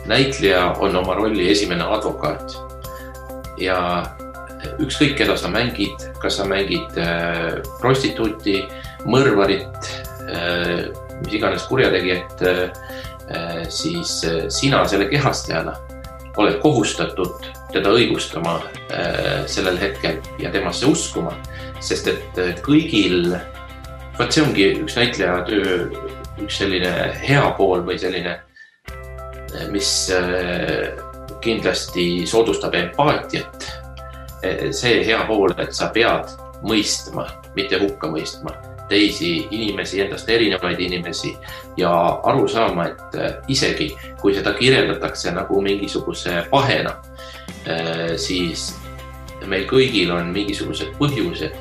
näitleja on oma rolli esimene advokaat ja ükskõik, keda sa mängid, kas sa mängid prostituuti, mõrvarit, mis iganes kurjategijat, siis sina selle kehastajana oled kohustatud teda õigustama sellel hetkel ja temasse uskuma, sest et kõigil, see ongi üks näitleja töö, üks selline hea pool või selline, mis kindlasti soodustab empaatiat. See hea pool, et sa pead mõistma, mitte hukka mõistma teisi inimesi, endast erinevaid inimesi ja aru saama, et isegi kui seda kirjeldatakse nagu mingisuguse pahena, siis meil kõigil on mingisugused põhjused,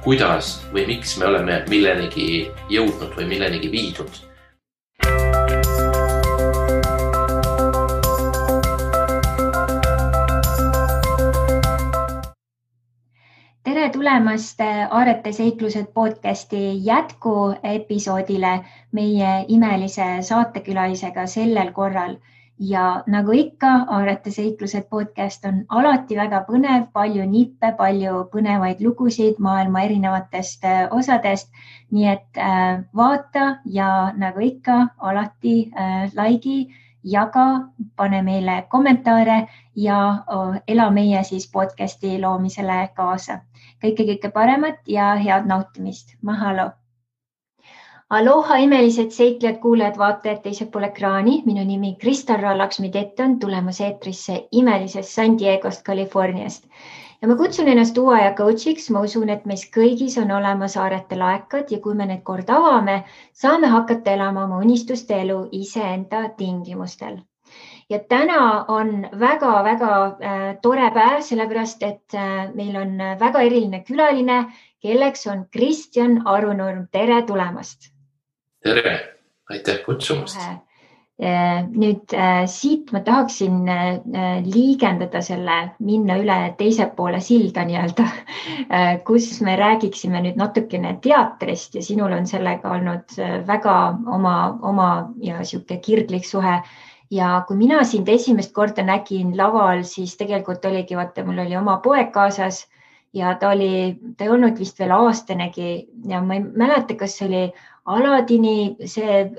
kuidas või miks me oleme millenigi jõudnud või millenigi viidud. Tere tulemast Aarete seiklused podcasti jätku episoodile meie imelise saatekülalisega sellel korral. Ja nagu ikka, Aarete seiklused podcast on alati väga põnev, palju nippe, palju põnevaid lugusid maailma erinevatest osadest. Nii et vaata ja nagu ikka, alati laigi, jaga, pane meile kommentaare ja ela meie siis podcasti loomisele kaasa. Kõike paremat ja head nautimist. Mahalo! Aloha imelised seiklejad, kuulajad, vaatajad teisel pool ekraani. Minu nimi Kristarra Laksmi-Tett on tulemas eetrisse imelisest San Diegost, Californiast. Ja ma kutsun ennast uue aja coachiks. Ma usun, et meis kõigis on olemas Aarete laekad ja kui me need kord avame, saame hakata elama oma unistuste elu iseenda tingimustel. Ja täna on väga tore päev, sellepärast, et meil on väga eriline külaline, kelleks on Kristjan Arunurm. Tere tulemast! Tere! Aitäh kutsumast! Nüüd siit ma tahaksin liigendada minna üle teise poole silda nii-öelda, kus me räägiksime nüüd natukene teatrist ja sinul on sellega olnud väga oma ja siuke kirglik suhe. Ja kui mina sind esimest korda nägin laval, siis tegelikult oligi, vaata, mul oli oma poeg kaasas ja ta ei olnud vist veel aastanegi ja ma ei mäleta, kas see oli Aladini see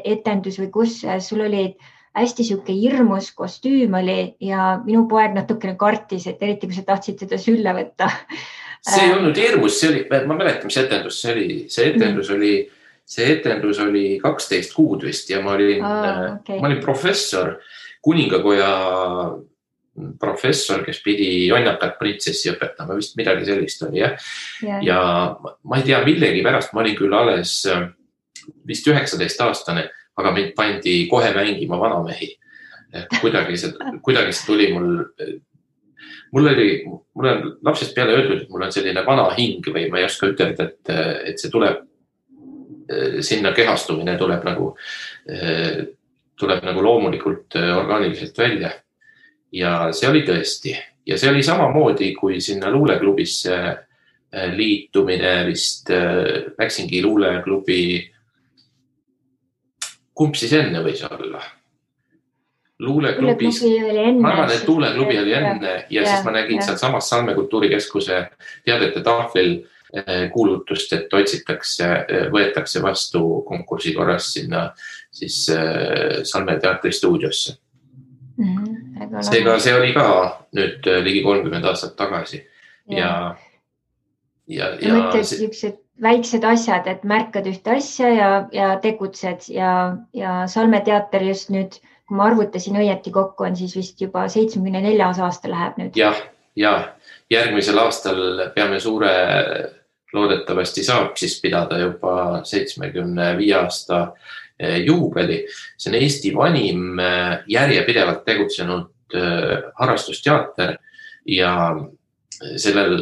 etendus või kus sul oli hästi siuke hirmus kostüüm oli ja minu poeg natukene kartis, et eriti kui sa tahtsid teda sülle võtta. See ei olnud hirmus, ma mäletan, mis etendus see oli. See etendus oli 12 kuud vist ja ma olin professor, kuningakoja professor, kes pidi jonnakat printsessi õpetama, vist midagi sellist oli, jah. Ja ma ei tea, millegi pärast ma olin küll alles vist 19-aastane, aga mind pandi kohe mängima vanamehi. Kuidagi see tuli mul on lapsest peale öeldud, et mul on selline vana hing või ma ei oska ütelda, et see tuleb sinna kehastumine tuleb nagu loomulikult orgaaniliselt välja. Ja see oli tõesti. Ja see oli samamoodi, kui sinna luuleklubisse liitumine vist läksingi luuleklubi. Kumb siis enne võis olla? Luuleklubis. Ma arvan, et luuleklubi oli enne ja siis ma nägin seal samas Salme kultuurikeskuse teadete tahvlil kuulutust, et võetakse vastu konkursi korras sinna siis Salme teatri stuudiosse. Seega see oli ka nüüd ligi 30 aastat tagasi. Ja mõtled niisugused väiksed asjad, et märkad ühte asja ja tegutsed ja Salme teater just nüüd, kui ma arvutasin õieti kokku, on siis vist juba 74 aasta läheb nüüd. Ja järgmisel aastal peame loodetavasti saab siis pidada juba 75 aasta juubeli. See on Eesti vanim järjepidevalt tegutsenud harrastusteater ja sellel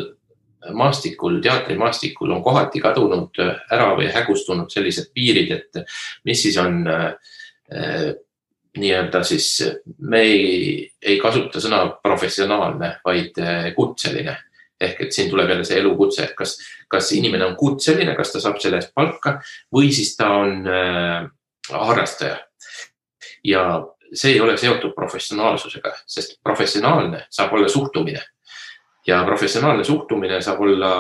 teatrimaastikul on kohati kadunud ära või hägustunud sellised piirid, et mis siis on nii-öelda siis, me ei kasuta sõna professionaalne, vaid kutseline. Ehk et siin tuleb jälle see elukutse, et kas inimene on kutseline, kas ta saab selle eest palka või siis ta on harrastaja. ja see ei ole seotud professionaalsusega, sest professionaalne saab olla suhtumine ja professionaalne suhtumine saab olla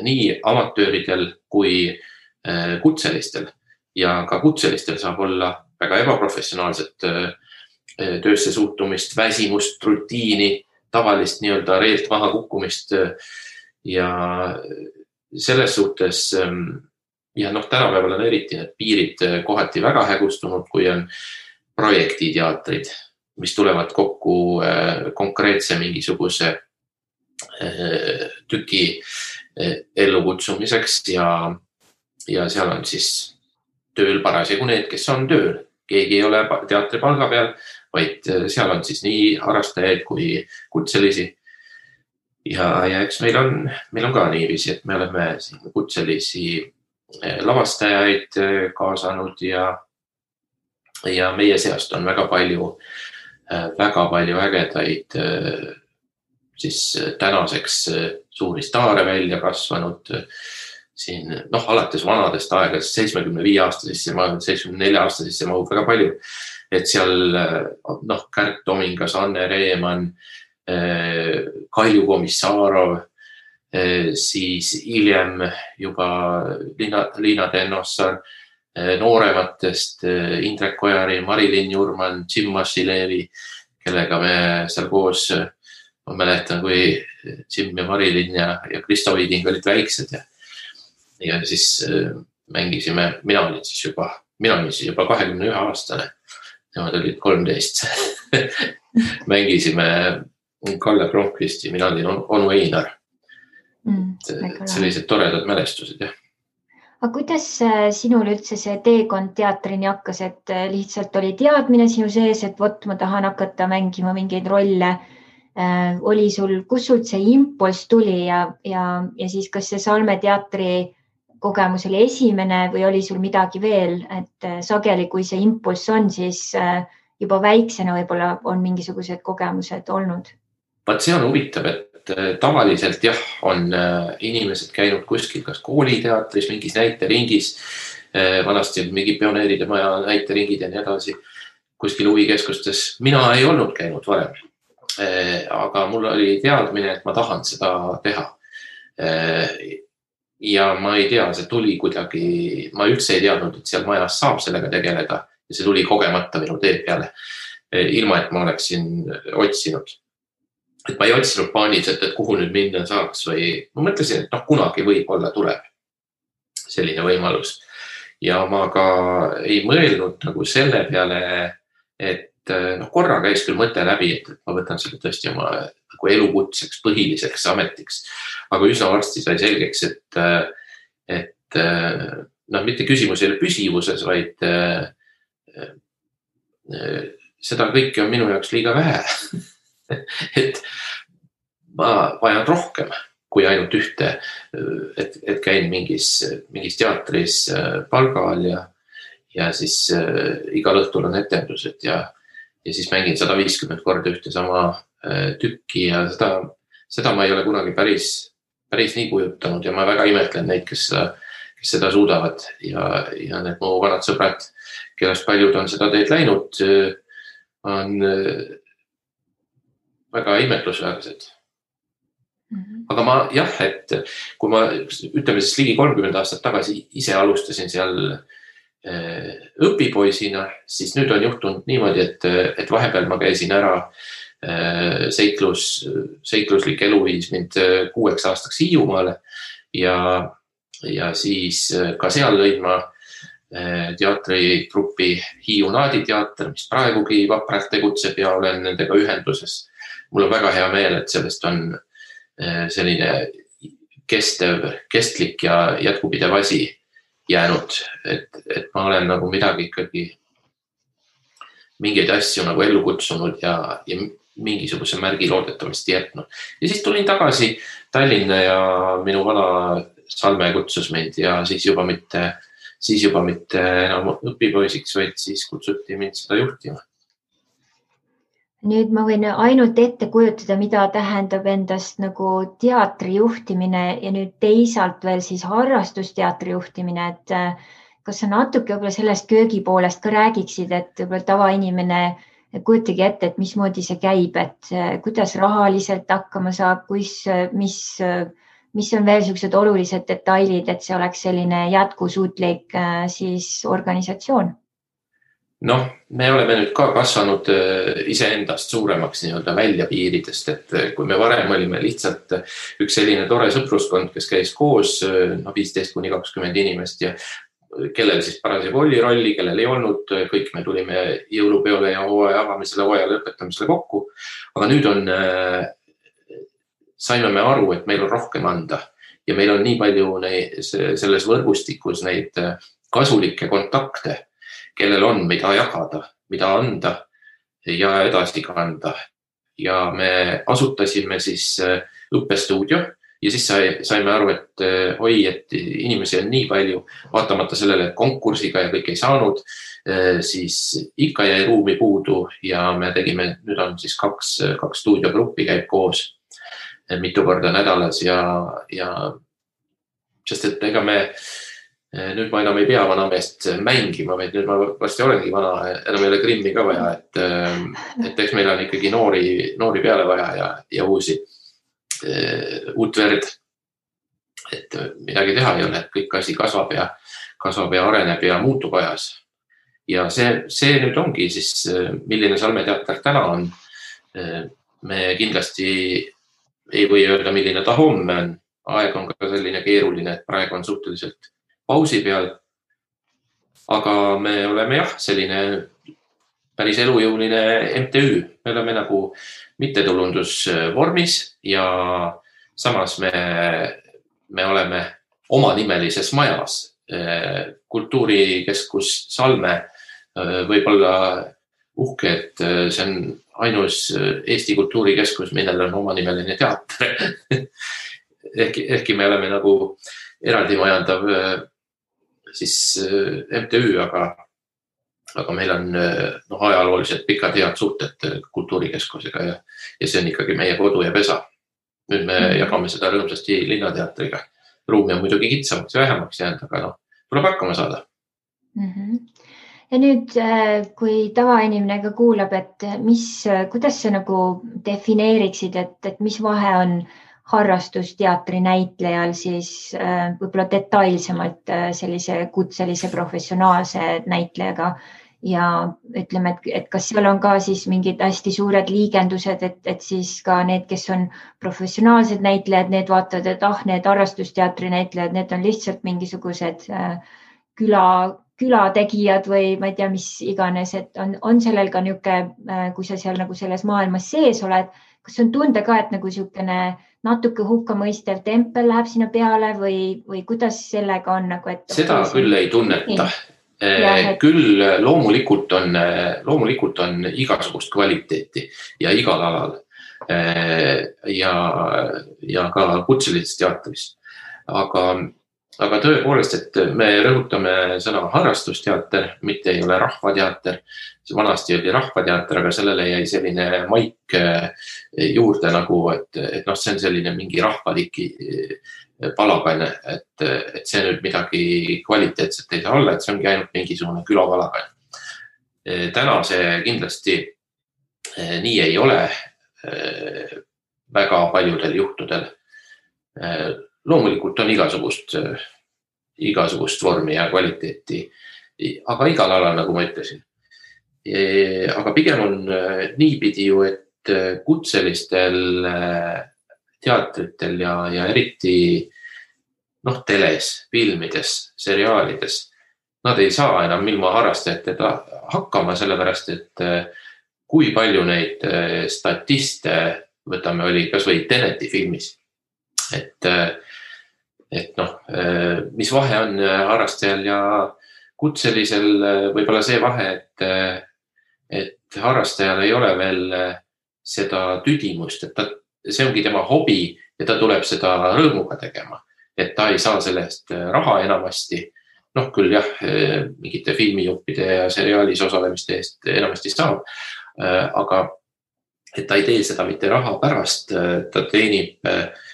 nii amatööridel kui kutselistel ja ka kutselistel saab olla väga ebaprofessionaalset töösse suhtumist, väsimust, rutiini, tavalist nii-öelda reelt maha kukkumist ja selles suhtes ja tänapäeval on eriti need piirid kohati väga hägustunud, kui on projektiteatrid, mis tulevad kokku konkreetse mingisuguse tüki ellukutsumiseks ja seal on siis tööl parasjagu need, kes on tööl. Keegi ei ole teatripalga peal, vaid seal on siis nii harrastajaid kui kutselisi. Ja eks meil on ka niiviisi, et me oleme siin kutselisi lavastajaid kaasanud ja meie seast on väga palju ägedaid siis tänaseks suuri staare välja kasvanud siin, alates vanadest aegadest 75-aastasesse, 74-aastasesse mahub väga palju, et seal Kärt Tomingas, Anne Reeman, Kalju Komissarov, siis hiljem juba Liina Tennossar, noorematest Indrek Ojari, Marilyn Jurman, Jim Masilevi, kellega me seal koos, ma mäletan, kui Jim ja Marilyn ja Kristo Viiding olid väiksed ja siis mängisime, mina olin siis juba 21-aastane, nemad olid 13. Mängisime Kalle Blomqvisti, mina olin onu Einar. Sellised toredad mälestused, jah. Aga kuidas sinul üldse see teekond teatrini hakkas, et lihtsalt oli teadmine sinu sees, et ma tahan hakata mängima mingeid rolle? Oli sul, kus sul see impulss tuli ja siis kas see Salme teatri kogemus oli esimene või oli sul midagi veel, et sageli, kui see impulss on, siis juba väiksena võib-olla on mingisugused kogemused olnud? Vaat see on huvitav, et tavaliselt jah, on inimesed käinud kuskil kas kooliteatris, mingis näiteringis, vanasti mingi pioneeride maja näiteringid ja nii edasi, kuskil huvikeskustes. Mina ei olnud käinud varem, aga mul oli teadmine, et ma tahan seda teha. Ja ma ei tea, see tuli kuidagi, ma üldse ei teadnud, et seal majas saab sellega tegeleda ja see tuli kogemata minu tee peale, ilma et ma oleksin otsinud. Et ma ei otsinud paaniliselt, et kuhu nüüd minna saaks või ma mõtlesin, et kunagi võib-olla tuleb selline võimalus. Ja ma ka ei mõelnud nagu selle peale, et korra käis küll mõte läbi, et ma võtan selle tõesti oma nagu elukutseks, põhiliseks ametiks. Aga üsna varsti sai selgeks, et mitte küsimus ei ole püsivuses, vaid seda kõike on minu jaoks liiga vähe. Et ma vajan rohkem kui ainult ühte, et käin mingis teatris palgal ja siis igal õhtul on etendused ja siis mängin 150 korda ühte sama tükki ja seda ma ei ole kunagi päris nii kujutanud ja ma väga imetlen neid, kes seda suudavad ja need mu vanad sõbrad, kellest paljud on seda teed läinud, on väga imetlusväärsed. Aga ma et kui ma ütleme siis ligi 30 aastat tagasi ise alustasin seal õpipoisina, siis nüüd on juhtunud niimoodi, et vahepeal ma käisin ära seikluslik elu viis mind 6 aastaks Hiiumaale ja siis ka seal lõin ma teatritruppi Hiiu Naaditeater, mis praegugi vapralt tegutseb ja olen nendega ühenduses. Mul on väga hea meel, et sellest on selline kestlik ja jätkupidev asi jäänud, et ma olen nagu midagi ikkagi, mingeid asju nagu ellu kutsunud ja mingisuguse märgi loodetavasti jätnud. Ja siis tulin tagasi Tallinna ja minu vana Salme kutsus mind ja siis juba mitte enam õpipoisiks, vaid siis kutsuti mind seda juhtima. Nüüd ma võin ainult ette kujutada, mida tähendab endast nagu teatri juhtimine ja nüüd teisalt veel siis harrastusteatri juhtimine, et kas sa natuke võib-olla sellest köögi poolest ka räägiksid, et võib-olla tavainimene kujutagi ette, et mismoodi see käib, et kuidas rahaliselt hakkama saab, mis on veel sellised olulised detailid, et see oleks selline jätkusuutlik siis organisatsioon? Noh, me oleme nüüd ka kasvanud iseendast suuremaks nii-öelda välja piiridest, et kui me varem olime lihtsalt üks selline tore sõpruskond, kes käis koos 15–20 inimest ja kellel siis parasjagu oli rolli, kellel ei olnud, kõik me tulime jõulupeole ja hooaja avamisele, hooaja lõpetamisele kokku. Aga nüüd saime me aru, et meil on rohkem anda ja meil on nii palju selles võrgustikus neid kasulikke kontakte, kellel on, mida jagada, mida anda ja edasi kanda. Ja me asutasime siis õppestuudio ja siis saime aru, et inimesi on nii palju, vaatamata sellele, et konkursiga ja kõik ei saanud, siis ikka jäi ruumi puudu ja me tegime, nüüd on siis kaks stuudiogruppi käib koos mitu korda nädalas ja sest et ega me nüüd ma enam ei pea vanameest mängima, vaid nüüd ma vasti olengi vana, enam ei ole Grimmi ka vaja, et eks meil on ikkagi noori peale vaja ja uut verd. Et midagi teha ei ole, et kõik asi kasvab ja areneb ja muutub ajas. Ja see nüüd ongi siis, milline Salmeteater täna on. Me kindlasti ei või öelda, milline ta homme on. Aeg on ka selline keeruline, et praegu on suhteliselt pausi peal, aga me oleme selline päris elujõuline MTÜ. Me oleme nagu mittetulundusvormis ja samas me oleme omanimelises majas. Kultuurikeskus Salme võib olla uhke, et see on ainus Eesti kultuurikeskus, millel on omanimeline teater. Ehkki me oleme nagu eraldi majandav siis MTÜ, aga meil on ajalooliselt pikad head suhted kultuurikeskusega ja see on ikkagi meie kodu ja pesa. Nüüd me jagame seda rõõmsasti linnateatriga. Ruumi on muidugi kitsamaks ja vähemaks jäänud, aga tuleb hakkama saada. Ja nüüd, kui tavainimene ka kuulab, et kuidas sa nagu defineeriksid, et mis vahe on harrastusteatri näitlejal siis võib-olla detailsemalt sellise kutselise professionaalse näitlejaga ja ütleme, et kas seal on ka siis mingid hästi suured liigendused, et siis ka need, kes on professionaalsed näitlejad, need vaatavad, et need harrastusteatri näitlejad, need on lihtsalt mingisugused külategijad või ma ei tea, mis iganes, et on sellel ka niisugune, kui sa seal nagu selles maailmas sees oled, kas on tunda ka, et nagu niisugune natuke hukkamõistev tempel läheb sinna peale või kuidas sellega on? Seda küll ei tunneta. Küll loomulikult on igasugust kvaliteeti ja igal alal ja ka kutselises teatris. Aga tõepoolest, et me rõhutame sõna harrastusteater, mitte ei ole rahvateater. Vanasti oli rahvateater, aga sellele jäi selline maik juurde nagu, et see on selline mingi rahvaliki palagan, et see nüüd midagi kvaliteetset ei saa olla, et see ongi ainult mingisugune külapalagan. Täna see kindlasti nii ei ole väga paljudel juhtudel. Loomulikult on igasugust vormi ja kvaliteeti, aga igal alal, nagu ma ütlesin. Aga pigem on niipidi ju, et kutselistel teatritel ja eriti teles, filmides, seriaalides, nad ei saa enam ilma harrastajatega hakkama, sellepärast, et kui palju neid statiste, võtame, oli kas või Teneti filmis, et mis vahe on harrastajal ja kutselisel, võib-olla see vahe, et harrastajal ei ole veel seda tüdimust, et see ongi tema hobi ja ta tuleb seda rõõmuga tegema, et ta ei saa sellest raha enamasti. Küll jah, mingite filmijuppide ja seriaalis osalemiste eest enamasti saab, aga et ta ei tee seda mitte raha pärast, ta teenib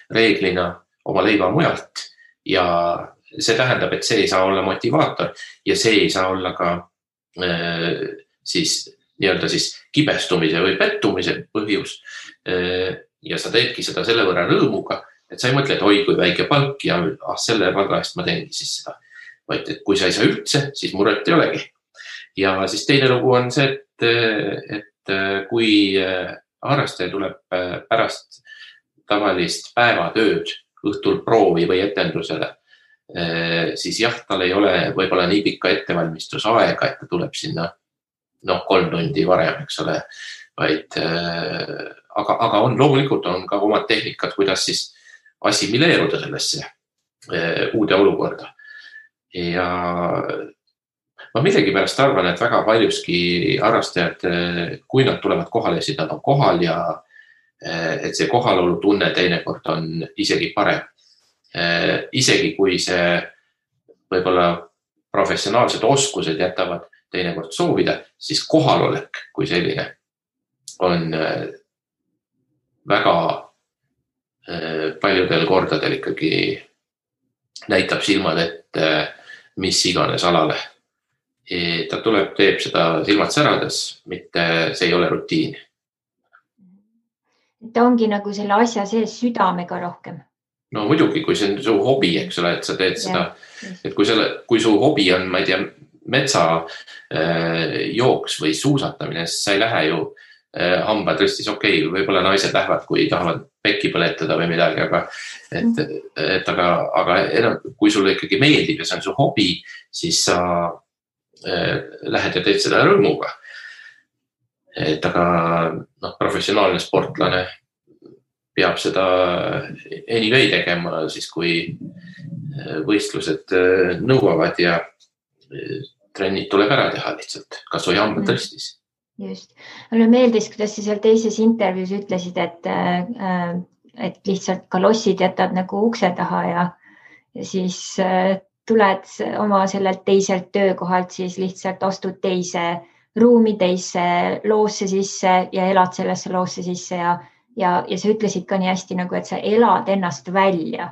reeglina oma leiva mujalt ja see tähendab, et see ei saa olla motivaator ja see ei saa olla ka siis nii-öelda siis kibestumise või pettumise põhjus. Ja sa teedki seda selle võrra rõõmuga, et sa ei mõtle, et oi, kui väike palk ja selle palga eest ma teengi siis seda. Vaid et kui sa ei saa üldse, siis muret ei olegi. Ja siis teine lugu on see, et kui harrastaja tuleb pärast tavalist päevatööd õhtul proovi või etendusele, siis jah, tal ei ole võib-olla nii pikka ettevalmistusaega, et ta tuleb sinna 3 tundi varem, eks ole, vaid aga loomulikult on ka omad tehnikad, kuidas siis assimileeruda sellesse uude olukorda. Ja ma millegipärast arvan, et väga paljuski harrastajad, kui nad tulevad kohale, siis nad on kohal ja et see kohalolu tunne teinekord on isegi parem. Isegi kui see võib-olla professionaalsed oskused jätavad teinekord soovida, siis kohalolek kui selline on väga paljudel kordadel ikkagi näitab silmad ette mis iganes alale. Ta tuleb, teeb seda silmad särades, mitte see ei ole rutiin. Ta ongi nagu selle asja sees südamega rohkem. No muidugi, kui see on su hobi, eks ole, et sa teed seda, et kui su hobi on, ma ei tea, metsa jooks või suusatamine, siis sa ei lähe ju hambad ristis, okei, võib-olla naised lähevad, kui tahavad pekki põletada või midagi, aga kui sulle ikkagi meeldib ja see on su hobi, siis sa lähed ja teed seda rõõmuga. Aga professionaalne sportlane peab seda anyway tegema, siis kui võistlused nõuavad ja trennid tuleb ära teha lihtsalt, kas või hambad ristis. Just. Mulle meeldis, kuidas sa seal teises intervjuus ütlesid, et lihtsalt kalossid jätad nagu ukse taha ja siis tuled oma sellelt teiselt töökohalt, siis lihtsalt astud teise ruumi, teise loosse sisse ja elad sellesse loosse sisse ja sa ütlesid ka nii hästi, nagu, et sa elad ennast välja.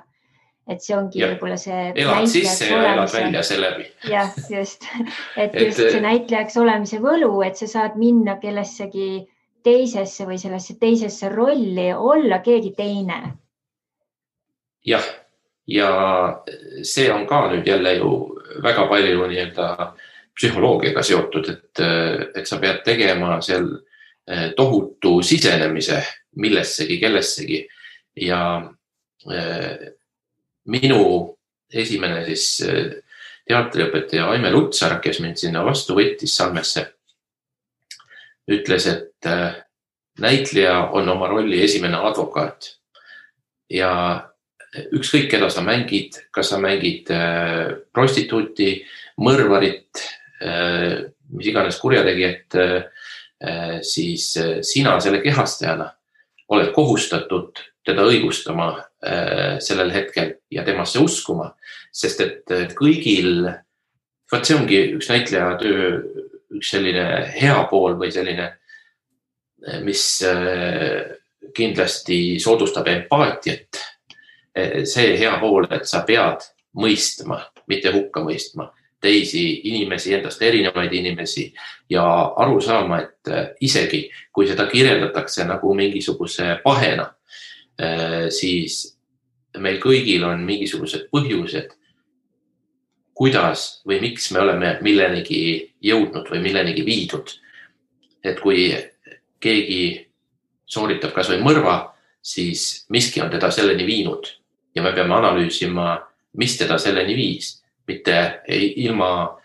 Et see ongi võib-olla see elad sisse ja elad välja selle läbi. Jah, just. Et just see näitlejaks olemise võlu, et sa saad minna kellessegi teisesse või sellesse teisesse rolli, olla keegi teine. Jah, ja see on ka nüüd jälle ju väga palju psühholoogiaga seotud, et sa pead tegema seal tohutu sisenemise millessegi, kellessegi ja minu esimene siis teatriõpetaja Aime Lutsar, kes mind sinna vastu võttis Salmesse, ütles, et näitleja on oma rolli esimene advokaat ja ükskõik, keda sa mängid, kas sa mängid prostituuti, mõrvarit, mis iganes kurjategijat, siis sina selle kehastajana oled kohustatud teda õigustama sellel hetkel ja temasse uskuma, sest et kõigil, see ongi üks näitleja töö, üks selline hea pool või selline, mis kindlasti soodustab empaatiat. See hea pool, et sa pead mõistma, mitte hukka mõistma teisi inimesi, endast erinevaid inimesi ja aru saama, et isegi kui seda kirjeldatakse nagu mingisuguse pahena, siis meil kõigil on mingisugused põhjused, kuidas või miks me oleme millenigi jõudnud või millenigi viidud. Et kui keegi sooritab kas või mõrva, siis miski on teda selleni viinud ja me peame analüüsima, mis teda selleni viis, mitte ilma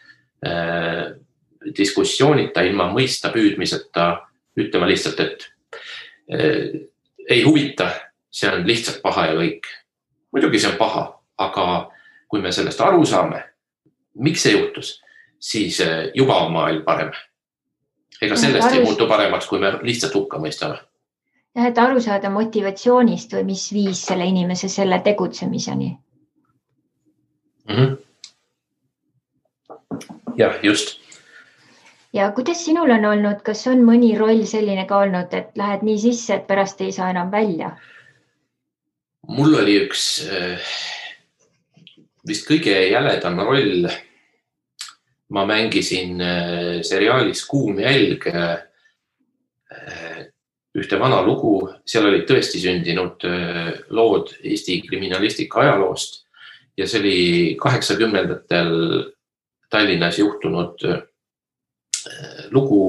diskussioonita, ilma mõista püüdmiseta ütlema lihtsalt, et ei huvita, see on lihtsalt paha ja kõik. Muidugi see on paha, aga kui me sellest aru saame, miks see juhtus, siis juba on maailm parem. Ega sellest ei muutu paremaks, kui me lihtsalt hukka mõistame. Ja, et aru saada motivatsioonist või mis viis selle inimese selle tegutsemiseni. Jah, just. Ja kuidas sinul on olnud, kas on mõni roll selline ka olnud, et lähed nii sisse, et pärast ei saa enam välja? Mul oli üks vist kõige jäledam roll. Ma mängisin seriaalis Kuum jälg ühte vana lugu, seal olid tõesti sündinud lood Eesti kriminalistika ajaloost ja see oli 80-ndatel Tallinnas juhtunud lugu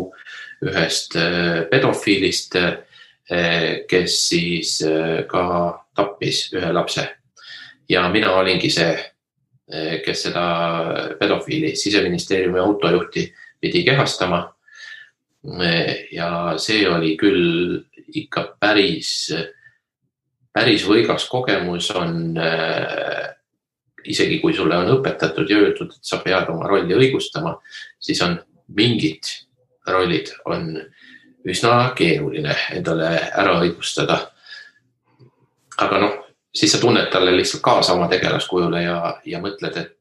ühest pedofiilist, kes siis ka tappis ühe lapse. Ja mina olingi see, kes seda pedofiili Siseministeeriumi autojuhti pidi kehastama. Ja see oli küll ikka päris võigas kogemus on, isegi kui sulle on õpetatud ja öeldud, et sa pead oma rolli õigustama, siis on mingid rollid on üsna keeruline endale ära õigustada. Aga siis sa tunned talle lihtsalt kaasa oma tegelaskujule ja mõtled, et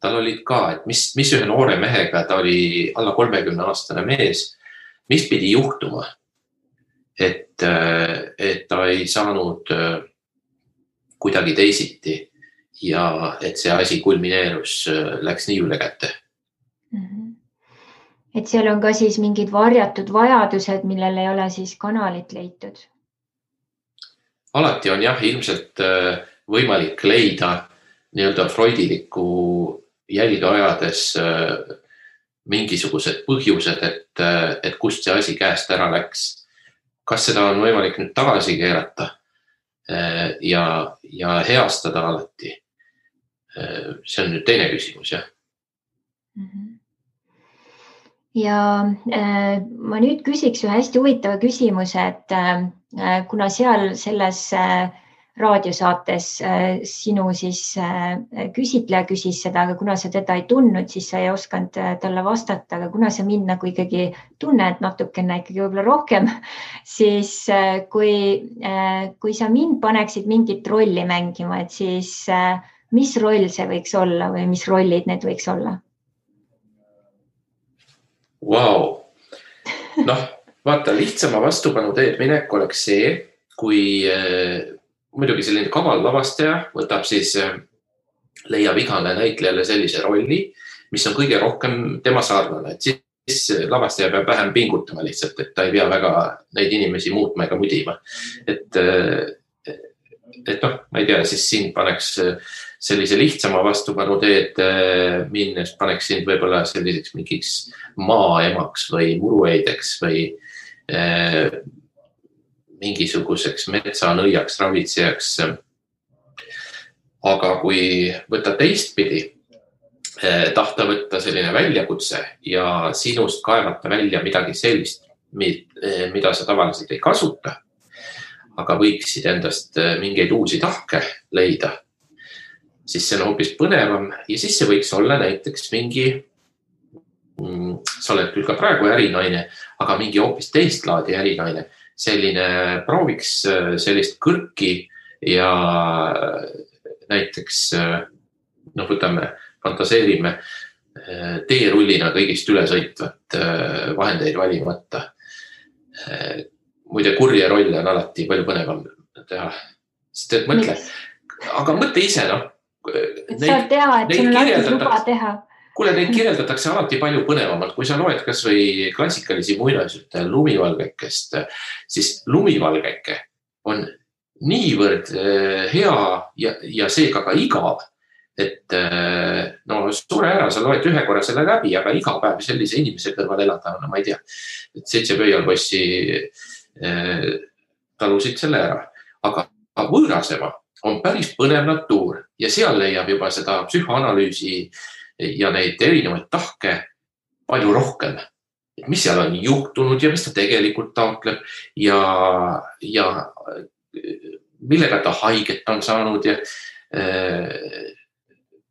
tal olid ka, et mis ühe noore mehega, ta oli alla 30-aastane mees, mis pidi juhtuma, et ta ei saanud kuidagi teisiti ja et see asi kulmineerus, läks nii üle kätte. Et seal on ka siis mingid varjatud vajadused, millel ei ole siis kanalit leitud? Alati on jah, ilmselt võimalik leida nii-öelda freudilikku jälge ajades mingisugused põhjused, et kust see asi käest ära läks. Kas seda on võimalik nüüd tagasi keerata ja heastada alati? See on nüüd teine küsimus, jah. Ja ma nüüd küsiks ühe hästi huvitava küsimuse, et kuna seal selles raadiosaates sinu siis küsitleja küsis seda, aga kuna sa teda ei tundnud, siis sa ei osanud talle vastata, aga kuna sa mind nagu ikkagi tunned natukene ikkagi võib-olla rohkem, siis kui sa mind paneksid mingit rolli mängima, et siis mis roll see võiks olla või mis rollid need võiks olla? Wow. Vaata, lihtsama vastupanu teed minek oleks see, kui muidugi selline kaval lavastaja võtab siis, leiab igale näitlejale sellise rolli, mis on kõige rohkem tema sarnane. Et siis lavastaja peab vähem pingutama lihtsalt, et ta ei pea väga neid inimesi muutma ega mudima. Et ma ei tea, siis siin paneks sellise lihtsama vastupanu teed minnes, paneks sind võib-olla selliseks mingiks maaemaks või murueideks või mingisuguseks metsanõiaks, ravitsejaks. Aga kui võtta teistpidi, tahta võtta selline väljakutse ja sinust kaevata välja midagi sellist, mida sa tavaliselt ei kasuta, aga võiksid endast mingeid uusi tahke leida, siis see on hoopis põnevam ja siis see võiks olla näiteks mingi, sa oled küll ka praegu ärinaine, aga mingi hoopis teist laadi ärinaine, selline prooviks sellist kõrki ja näiteks, võtame, fantaseerime teerullina kõigist ülesõitvat vahendeid valimata. Muide, kurje rolle on alati palju põnevam teha, sest et mõtle, aga mõtle ise, saad teha, et sul on alati luba teha. Kuule, neid kirjeldatakse alati palju põnevamalt, kui sa loed kas või klassikalisi muinasjutte Lumivalgekest, siis Lumivalgeke on niivõrd hea ja seega ka igav, et suure ära, sa loed ühe korra selle läbi, aga iga päev sellise inimese kõrval elada, ma ei tea, et 7 pöialbossi talusid selle ära, aga võõrasema on päris põnev natuur ja seal leiab juba seda psühhoanalüüsi ja neid erinevaid tahke palju rohkem. Mis seal on juhtunud ja mis ta tegelikult taotleb ja millega ta haiget on saanud ja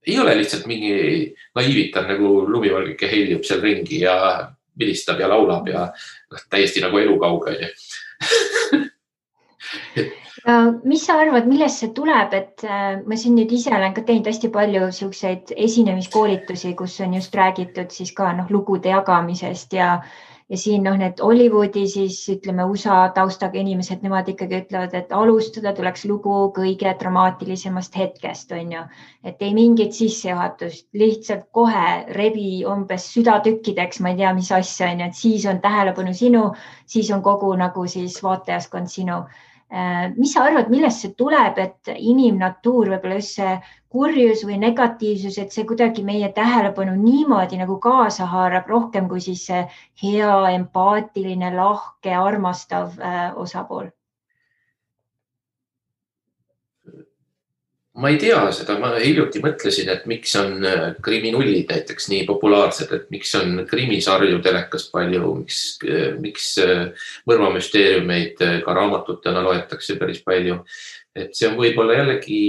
ei ole lihtsalt mingi naiivitan nagu Lumivalgeke heljub seal ringi ja vilistab ja laulab ja täiesti nagu elukauge. Ja mis sa arvad, millest see tuleb, et ma siin nüüd ise olen ka teinud hästi palju selliseid esinemiskoolitusi, kus on just räägitud siis ka lugude jagamisest ja ja siin need Hollywoodi siis ütleme USA taustaga inimesed, nemad ikkagi ütlevad, et alustada tuleks lugu kõige dramaatilisemast hetkest, on ju. Et ei mingit sissejuhatust, lihtsalt kohe rebi umbes südatükkideks, ma ei tea, mis asja, on ju, et siis on tähelepanu sinu, siis on kogu nagu siis vaatajaskond sinu. Mis sa arvad, millest see tuleb, et inimnatuur, võib-olla just see kurjus või negatiivsus, et see kuidagi meie tähelepanu niimoodi nagu kaasa haarab rohkem kui siis see hea, empaatiline, lahke, armastav osapool? Ma ei tea seda, ma hiljuti mõtlesin, et miks on kriminullid näiteks nii populaarsed, et miks on krimisarju telekas palju, miks mõrvamüsteeriumeid ka raamatutena loetakse päris palju. Et see on võib-olla jällegi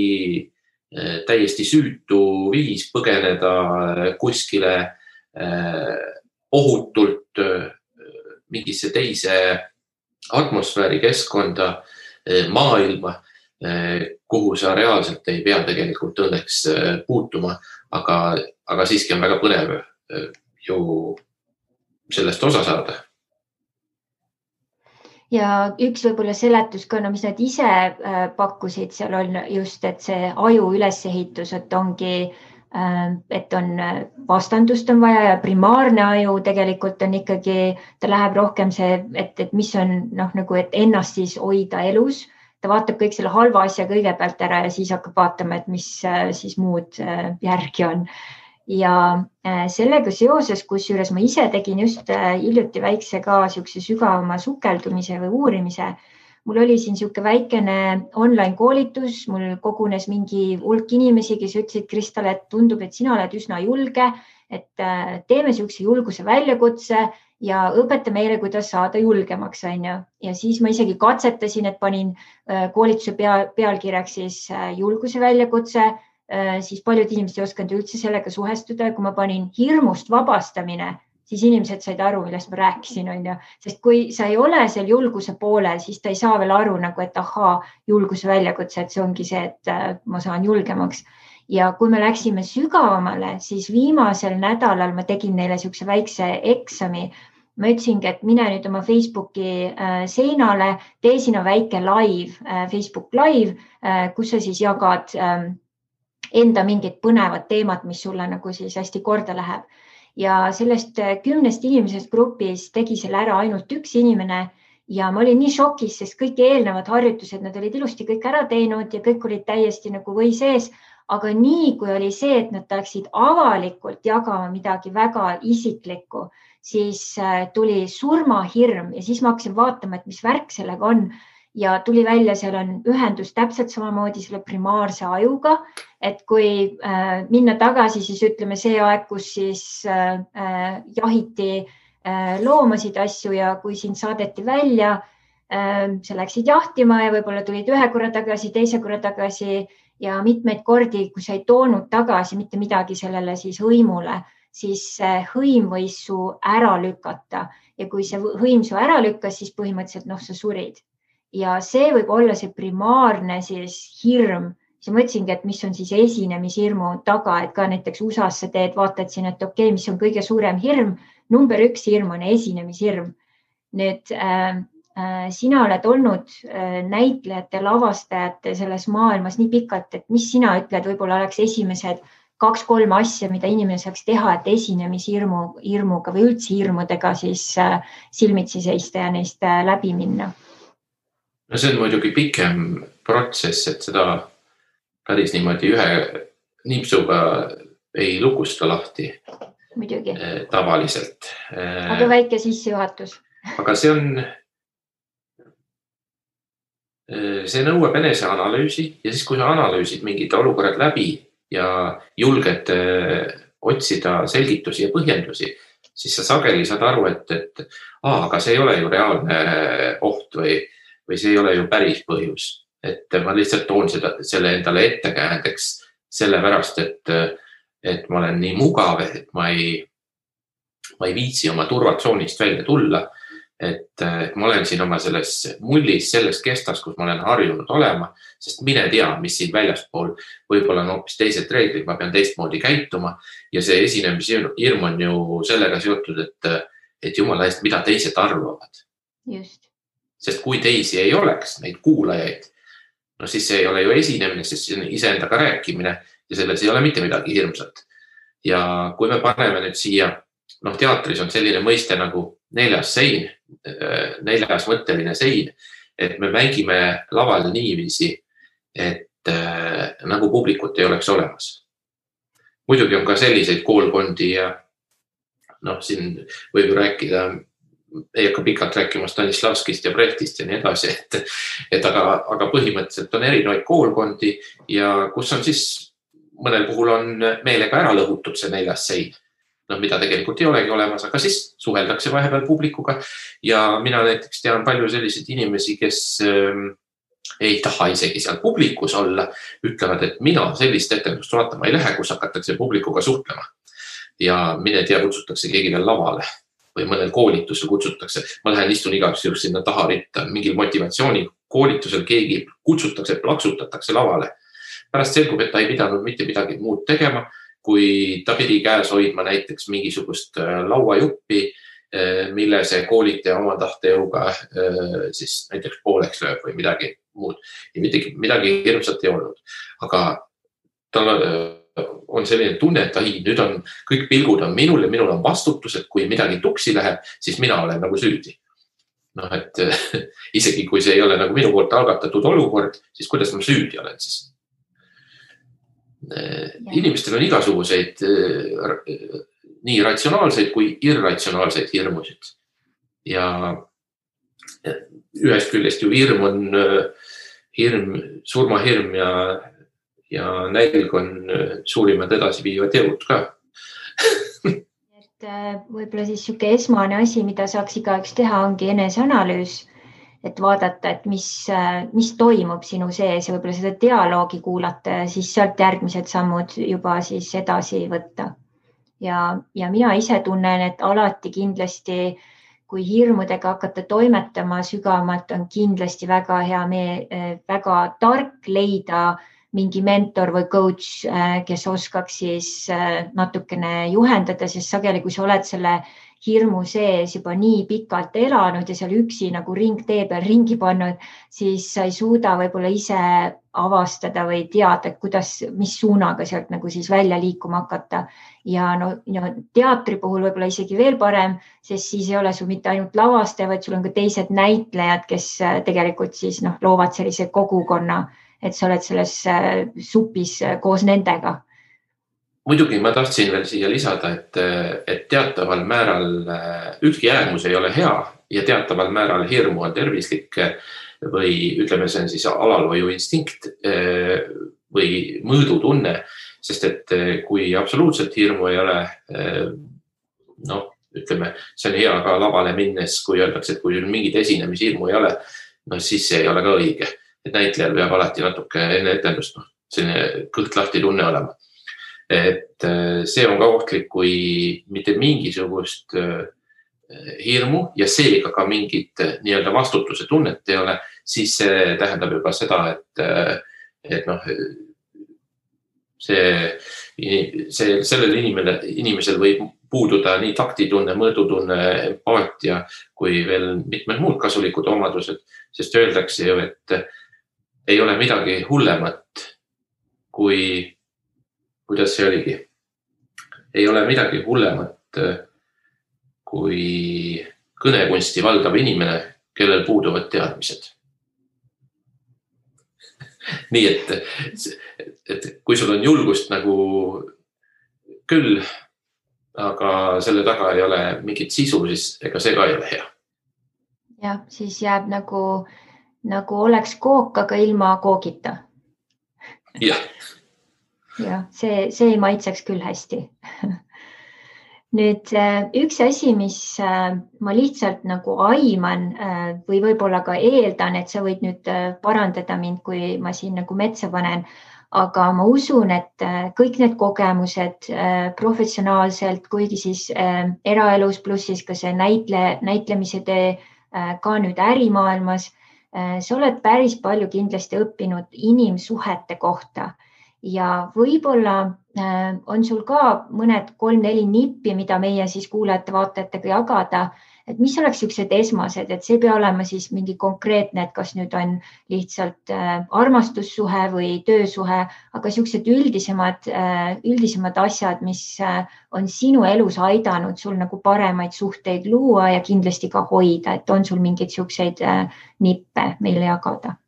täiesti süütu viis põgeneda kuskile ohutult mingisse teise atmosfääri keskkonda, maailma, kuhu sa reaalselt ei pea tegelikult õnneks puutuma, aga siiski on väga põnev ju sellest osa saada. Ja üks võib-olla seletus ka, mis nad ise pakkusid, seal on just, et see aju ülesehitus, et ongi, et on vastandust on vaja ja primaarne aju tegelikult on ikkagi, ta läheb rohkem see, et mis on nagu, et ennast siis hoida elus. Ta vaatab kõik selle halva asja kõigepealt ära ja siis hakkab vaatama, et mis siis muud järgi on. Ja sellega seoses, kusjuures ma ise tegin just hiljuti väikse ka siukse sügavama sukeldumise või uurimise. Mul oli siin siuke väikene online koolitus, mul kogunes mingi hulk inimesi, kes ütlesid, Kristal, et tundub, et sina oled üsna julge, et teeme siukse julguse väljakutse ja õpeta meile, kuidas saada julgemaks, on ju. Ja siis ma isegi katsetasin, et panin koolituse pealkirjaks siis julguse väljakutse, siis paljud inimesed ei osanud üldse sellega suhestuda. Kui ma panin hirmust vabastamine, siis inimesed said aru, millest ma rääkisin, on ju. Sest kui sa ei ole seal julguse poolel, siis ta ei saa veel aru, nagu, et julguse väljakutse, et see ongi see, et ma saan julgemaks. Ja kui me läksime sügavamale, siis viimasel nädalal ma tegin neile siukse väikse eksami. Ma ütlesingi, et mine nüüd oma Facebooki seinale, tee sinna väike live, Facebook live, kus sa siis jagad enda mingid põnevad teemad, mis sulle nagu siis hästi korda läheb. Ja sellest 10 inimesest grupis tegi selle ära ainult üks inimene ja ma olin nii šokis, sest kõik eelnevad harjutused, nad olid ilusti kõik ära teinud ja kõik olid täiesti nagu või sees. Aga nii kui oli see, et nad tahaksid avalikult jagama midagi väga isiklikku, siis tuli surmahirm ja siis ma hakkasin vaatama, et mis värk sellega on. Ja tuli välja, seal on ühendus täpselt samamoodi selle primaarse ajuga, et kui minna tagasi, siis ütleme see aeg, kus siis jahiti loomasid asju ja kui sind saadeti välja, sa läksid jahtima ja võib-olla tulid ühe korra tagasi, teise korra tagasi ja mitmeid kordi, kui sa ei toonud tagasi mitte midagi sellele siis hõimule, siis hõim võis su ära lükata ja kui see hõim su ära lükkas, siis põhimõtteliselt sa surid. Ja see võib olla see primaarne siis hirm. Siis mõtlesingi, et mis on siis esinemishirmu taga, et ka näiteks USA-s sa teed, vaatad siin, et okei, mis on kõige suurem hirm. Number 1 hirm on esinemishirm. Nüüd sina oled olnud näitlejate, lavastajate selles maailmas nii pikalt, et mis sina ütled, võib-olla oleks esimesed 2-3 asja, mida inimene saaks teha, et esinemishirmuga või üldse hirmudega siis silmitsi seista ja neist läbi minna? No see on muidugi pikem protsess, et seda päris niimoodi ühe nipsuga ei lukusta lahti. Muidugi. Tavaliselt. Aga väike sissejuhatus. Aga see nõuab eneseanalüüsi ja siis, kui sa analüüsid mingid olukorrad läbi ja julged otsida selgitusi ja põhjendusi, siis sa sageli saad aru, et aga see ei ole ju reaalne oht või see ei ole ju päris põhjus. Et ma lihtsalt toon selle endale ettekäändeks sellepärast, et ma olen nii mugav, et ma ei viitsi oma turvatsoonist välja tulla. Et ma olen siin oma selles mullis, selles kestas, kus ma olen harjunud olema, sest mine tea, mis siin väljaspool võib-olla on hoopis teised reeglid, ma pean teistmoodi käituma ja see esinemishirm on ju sellega seotud, et et jumala eest, mida teised arvavad. Just. Sest kui teisi ei oleks, neid kuulajaid, no siis see ei ole ju esinemine, sest see on iseendaga rääkimine ja selles ei ole mitte midagi hirmsat. Ja kui me paneme nüüd siia, teatris on selline mõiste nagu neljas mõtteline sein, et me mängime laval niiviisi, et nagu publikut ei oleks olemas. Muidugi on ka selliseid koolkondi ja siin võib rääkida, ei hakka pikalt rääkima Stanislavskist ja Brechtist ja nii edasi, aga põhimõtteliselt on erinevaid koolkondi ja kus on siis mõnel puhul on meelega ära lõhutud see neljas sein, mida tegelikult ei olegi olemas, aga siis suheldakse vahepeal publikuga ja mina näiteks tean palju selliseid inimesi, kes ei taha isegi seal publikus olla, ütlevad, et mina sellist etendust vaatama ei lähe, kus hakatakse publikuga suhtlema ja mine tea, kutsutakse keegi veel lavale või mõnel koolitusel kutsutakse. Ma lähen istun igaks juhul sinna taha ritta, mingil motivatsiooni koolitusel keegi kutsutakse, plaksutatakse lavale. Pärast selgub, et ta ei pidanud mitte midagi muud tegema, kui ta pidi käes hoidma näiteks mingisugust lauajuppi, mille see koolitaja oma tahtejõuga siis näiteks pooleks lööb või midagi muud. Ja midagi hirmsat ei olnud. Aga tal on selline tunne, et nüüd on kõik pilgud on minul ja minul on vastutus, et kui midagi tuksi läheb, siis mina olen nagu süüdi. Et isegi kui see ei ole nagu minu poolt algatatud olukord, siis kuidas ma süüdi olen siis? Inimestel on igasuguseid nii ratsionaalseid kui irratsionaalseid hirmusid. Ja ühest küljest ju hirm on surmahirm ja nälg on suurimad edasiviivad jõud ka. Et võib-olla siis siuke esmane asi, mida saaks igaüks teha, ongi eneseanalüüs, et vaadata, et mis toimub sinu sees ja võib-olla seda dialoogi kuulata ja siis sealt järgmised sammud juba siis edasi võtta. Ja mina ise tunnen, et alati kindlasti, kui hirmudega hakata toimetama sügavamalt, on kindlasti väga hea väga tark leida mingi mentor või coach, kes oskaks siis natukene juhendada, sest sageli, kui sa oled selle hirmu sees juba nii pikalt elanud ja seal üksi nagu ringtee peal ringi pannud, siis sa ei suuda võib-olla ise avastada või teada, mis suunaga sealt nagu siis välja liikuma hakata. Ja teatri puhul võib-olla isegi veel parem, sest siis ei ole sul mitte ainult lavastaja, vaid sul on ka teised näitlejad, kes tegelikult siis loovad sellise kogukonna, et sa oled selles supis koos nendega. Muidugi ma tahtsin veel siia lisada, et teataval määral ükski äärmus ei ole hea ja teataval määral hirmu on tervislik või ütleme, see on siis alalhoiu instinkt või mõõdutunne, sest et kui absoluutselt hirmu ei ole, ütleme, see on hea ka lavale minnes, kui öeldakse, et kui mingid esinemishirmu ei ole, siis see ei ole ka õige. Et näitlejal peab alati natuke enne etendust selline kõht lahti tunne olema. Et see on ka ohtlik, kui mitte mingisugust hirmu ja seega ka mingit nii-öelda vastutuse tunnet ei ole, siis see tähendab juba seda, et sellel inimesel võib puududa nii taktitunne, mõõdutunne, empaatia kui veel mitmed muud kasulikud omadused, sest öeldakse ju, et ei ole midagi hullemat kui, kuidas see oligi, ei ole midagi hullemat kui kõnekunsti valdav inimene, kellel puuduvad teadmised. Nii et kui sul on julgust nagu küll, aga selle taga ei ole mingit sisu, siis ega see ka ei ole hea. Ja, siis jääb nagu oleks kook, aga ilma koogita. Jah. Ja, see ei maitseks küll hästi. Nüüd üks asi, mis ma lihtsalt nagu aiman või võib-olla ka eeldan, et sa võid nüüd parandada mind, kui ma siin nagu metsa panen, aga ma usun, et kõik need kogemused professionaalselt, kuigi siis eraelus pluss siis ka see näitlemise tee ka nüüd ärimaailmas, sa oled päris palju kindlasti õppinud inimsuhete kohta ja võib-olla on sul ka mõned 3-4 nippi, mida meie siis kuulajate-vaatajatega jagada, et mis oleks sellised esmased, et see ei pea olema siis mingi konkreetne, et kas nüüd on lihtsalt armastussuhe või töösuhe, aga sellised üldisemad asjad, mis on sinu elus aidanud sul nagu paremaid suhteid luua ja kindlasti ka hoida, et on sul mingeid selliseid nippe meile jagada?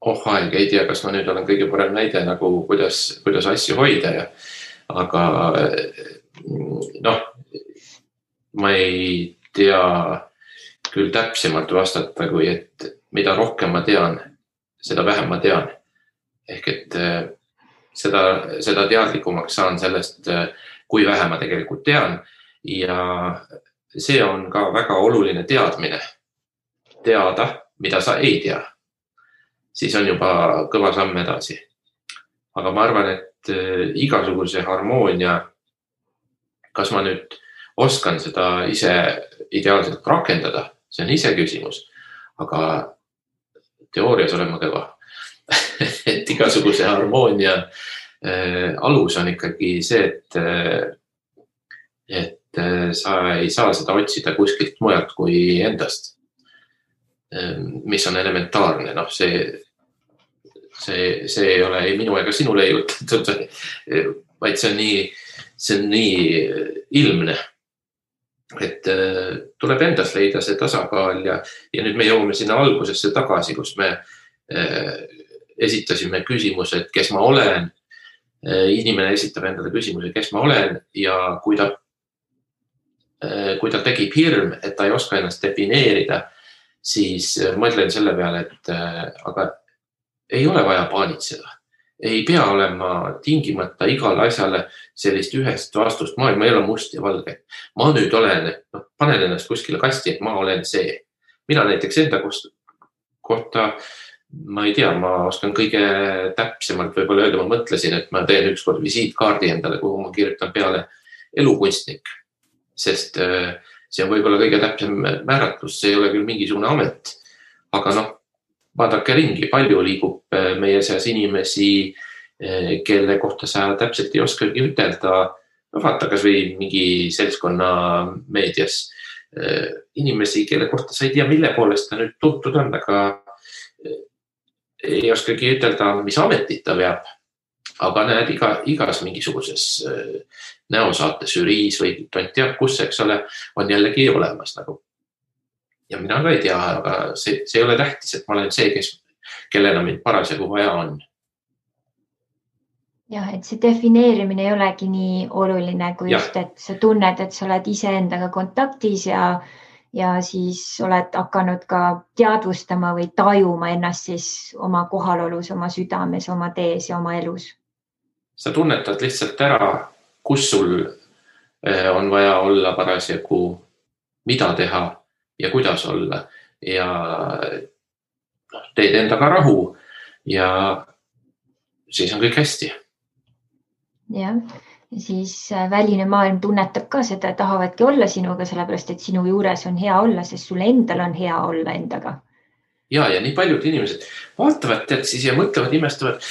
Aeg, ei tea, kas ma nüüd olen kõige parem näide nagu kuidas asju hoida aga ma ei tea küll täpsemalt vastata, kui et mida rohkem ma tean, seda vähem ma tean. Ehk et seda teadlikumaks saan sellest, kui vähe ma tegelikult tean ja see on ka väga oluline teadmine. Teada, mida sa ei tea. Siis on juba kõva samm edasi. Aga ma arvan, et igasuguse harmoonia, kas ma nüüd oskan seda ise ideaalselt rakendada, see on ise küsimus, aga teoorias olen ma kõva. Et igasuguse harmoonia alus on ikkagi see, et sa ei saa seda otsida kuskilt mujalt kui endast, mis on elementaarne. See ei ole ei minu ega sinu leiutatud, vaid see on nii ilmne, et tuleb endast leida see tasakaal ja nüüd me jõuame sinna algusesse tagasi, kus me esitasime küsimuse, et kes ma olen. Inimene esitab endale küsimuse, kes ma olen ja kui ta tekib hirm, et ta ei oska ennast defineerida, siis mõtlen selle peale, et aga ei ole vaja paanitseda. Ei pea olema tingimata igale asjale sellist ühest vastust. Maailma ei ole must ja valge. Ma nüüd olen, panen ennast kuskile kasti, et ma olen see. Mina näiteks enda kohta, ma ei tea, ma oskan kõige täpsemalt võib-olla öelda, ma mõtlesin, et ma teen ükskord visiitkaardi endale, kuhu ma kirjutan peale elukunstnik. Sest see on võib-olla kõige täpsem määratlus, see ei ole küll mingisugune amet, aga vaadake ringi, palju liigub meie seas inimesi, kelle kohta sa täpselt ei oskagi ütelda. Vaata kas või mingi seltskonna meedias inimesi, kelle kohta sa ei tea, mille poolest ta nüüd tuntud on, aga ei oskagi ütelda, mis ametit ta veab. Aga näed igas mingisuguses näosaates žüriis või tont teab kus, eks ole, on jällegi olemas nagu. Ja mina ka ei tea, aga see ei ole tähtis, et ma olen see, kellena mind parasjagu vaja on. Jah, et see defineerimine ei olegi nii oluline, kui just, et sa tunned, et sa oled ise endaga kontaktis ja siis oled hakanud ka teadvustama või tajuma ennast siis oma kohalolus, oma südames, oma tees ja oma elus. Sa tunnetad lihtsalt ära, kus sul on vaja olla parasjagu, mida teha ja kuidas olla ja teed endaga rahu ja siis on kõik hästi. Jah, ja siis väline maailm tunnetab ka seda, tahavadki olla sinuga, sellepärast et sinu juures on hea olla, sest sul endal on hea olla endaga. Ja nii paljud inimesed vaatavad siis ja mõtlevad, imestavad,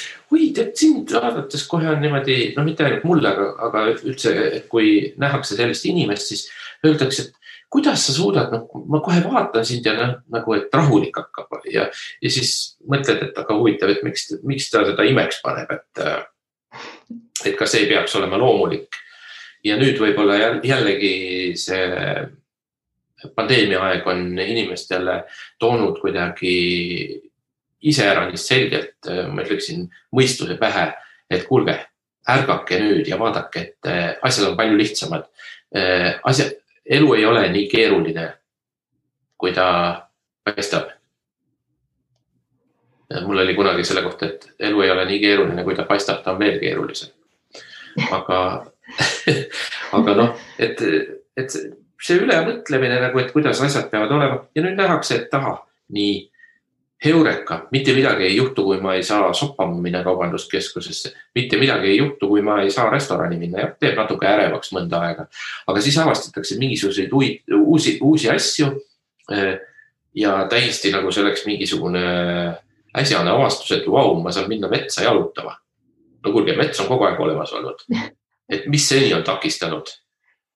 sind vaadates kohe on niimoodi, mitte ainult mulle, aga üldse, et kui nähakse sellist inimest, siis öeldakse, et kuidas sa suudad, ma kohe vaatan sind ja nagu, et rahulik hakkab ja siis mõtled, et aga huvitav, et miks ta seda imeks paneb, et kas ei peaks olema loomulik. Ja nüüd võib-olla jällegi see pandeemia aeg on inimestele toonud kuidagi iseäranis selgelt, ma ütleksin, mõistuse pähe, et kuulge, ärgake nüüd ja vaadake, et asjad on palju lihtsamad. Elu ei ole nii keeruline, kui ta paistab. Mul oli kunagi selle kohta, et elu ei ole nii keeruline, kui ta paistab, ta on veel keerulisem. Aga et see ülemõtlemine, et kuidas asjad peavad olema ja nüüd nähakse, et nii heureka, mitte midagi ei juhtu, kui ma ei saa soppama minna kaubanduskeskusesse, mitte midagi ei juhtu, kui ma ei saa restorani minna ja teeb natuke ärevaks mõnda aega. Aga siis avastatakse mingisuguseid uusi asju ja täiesti nagu selleks mingisugune äsjane avastus, et ma saan minna metsa jalutama. no kuulge, mets on kogu aeg olemas olnud. Et mis seni on takistanud?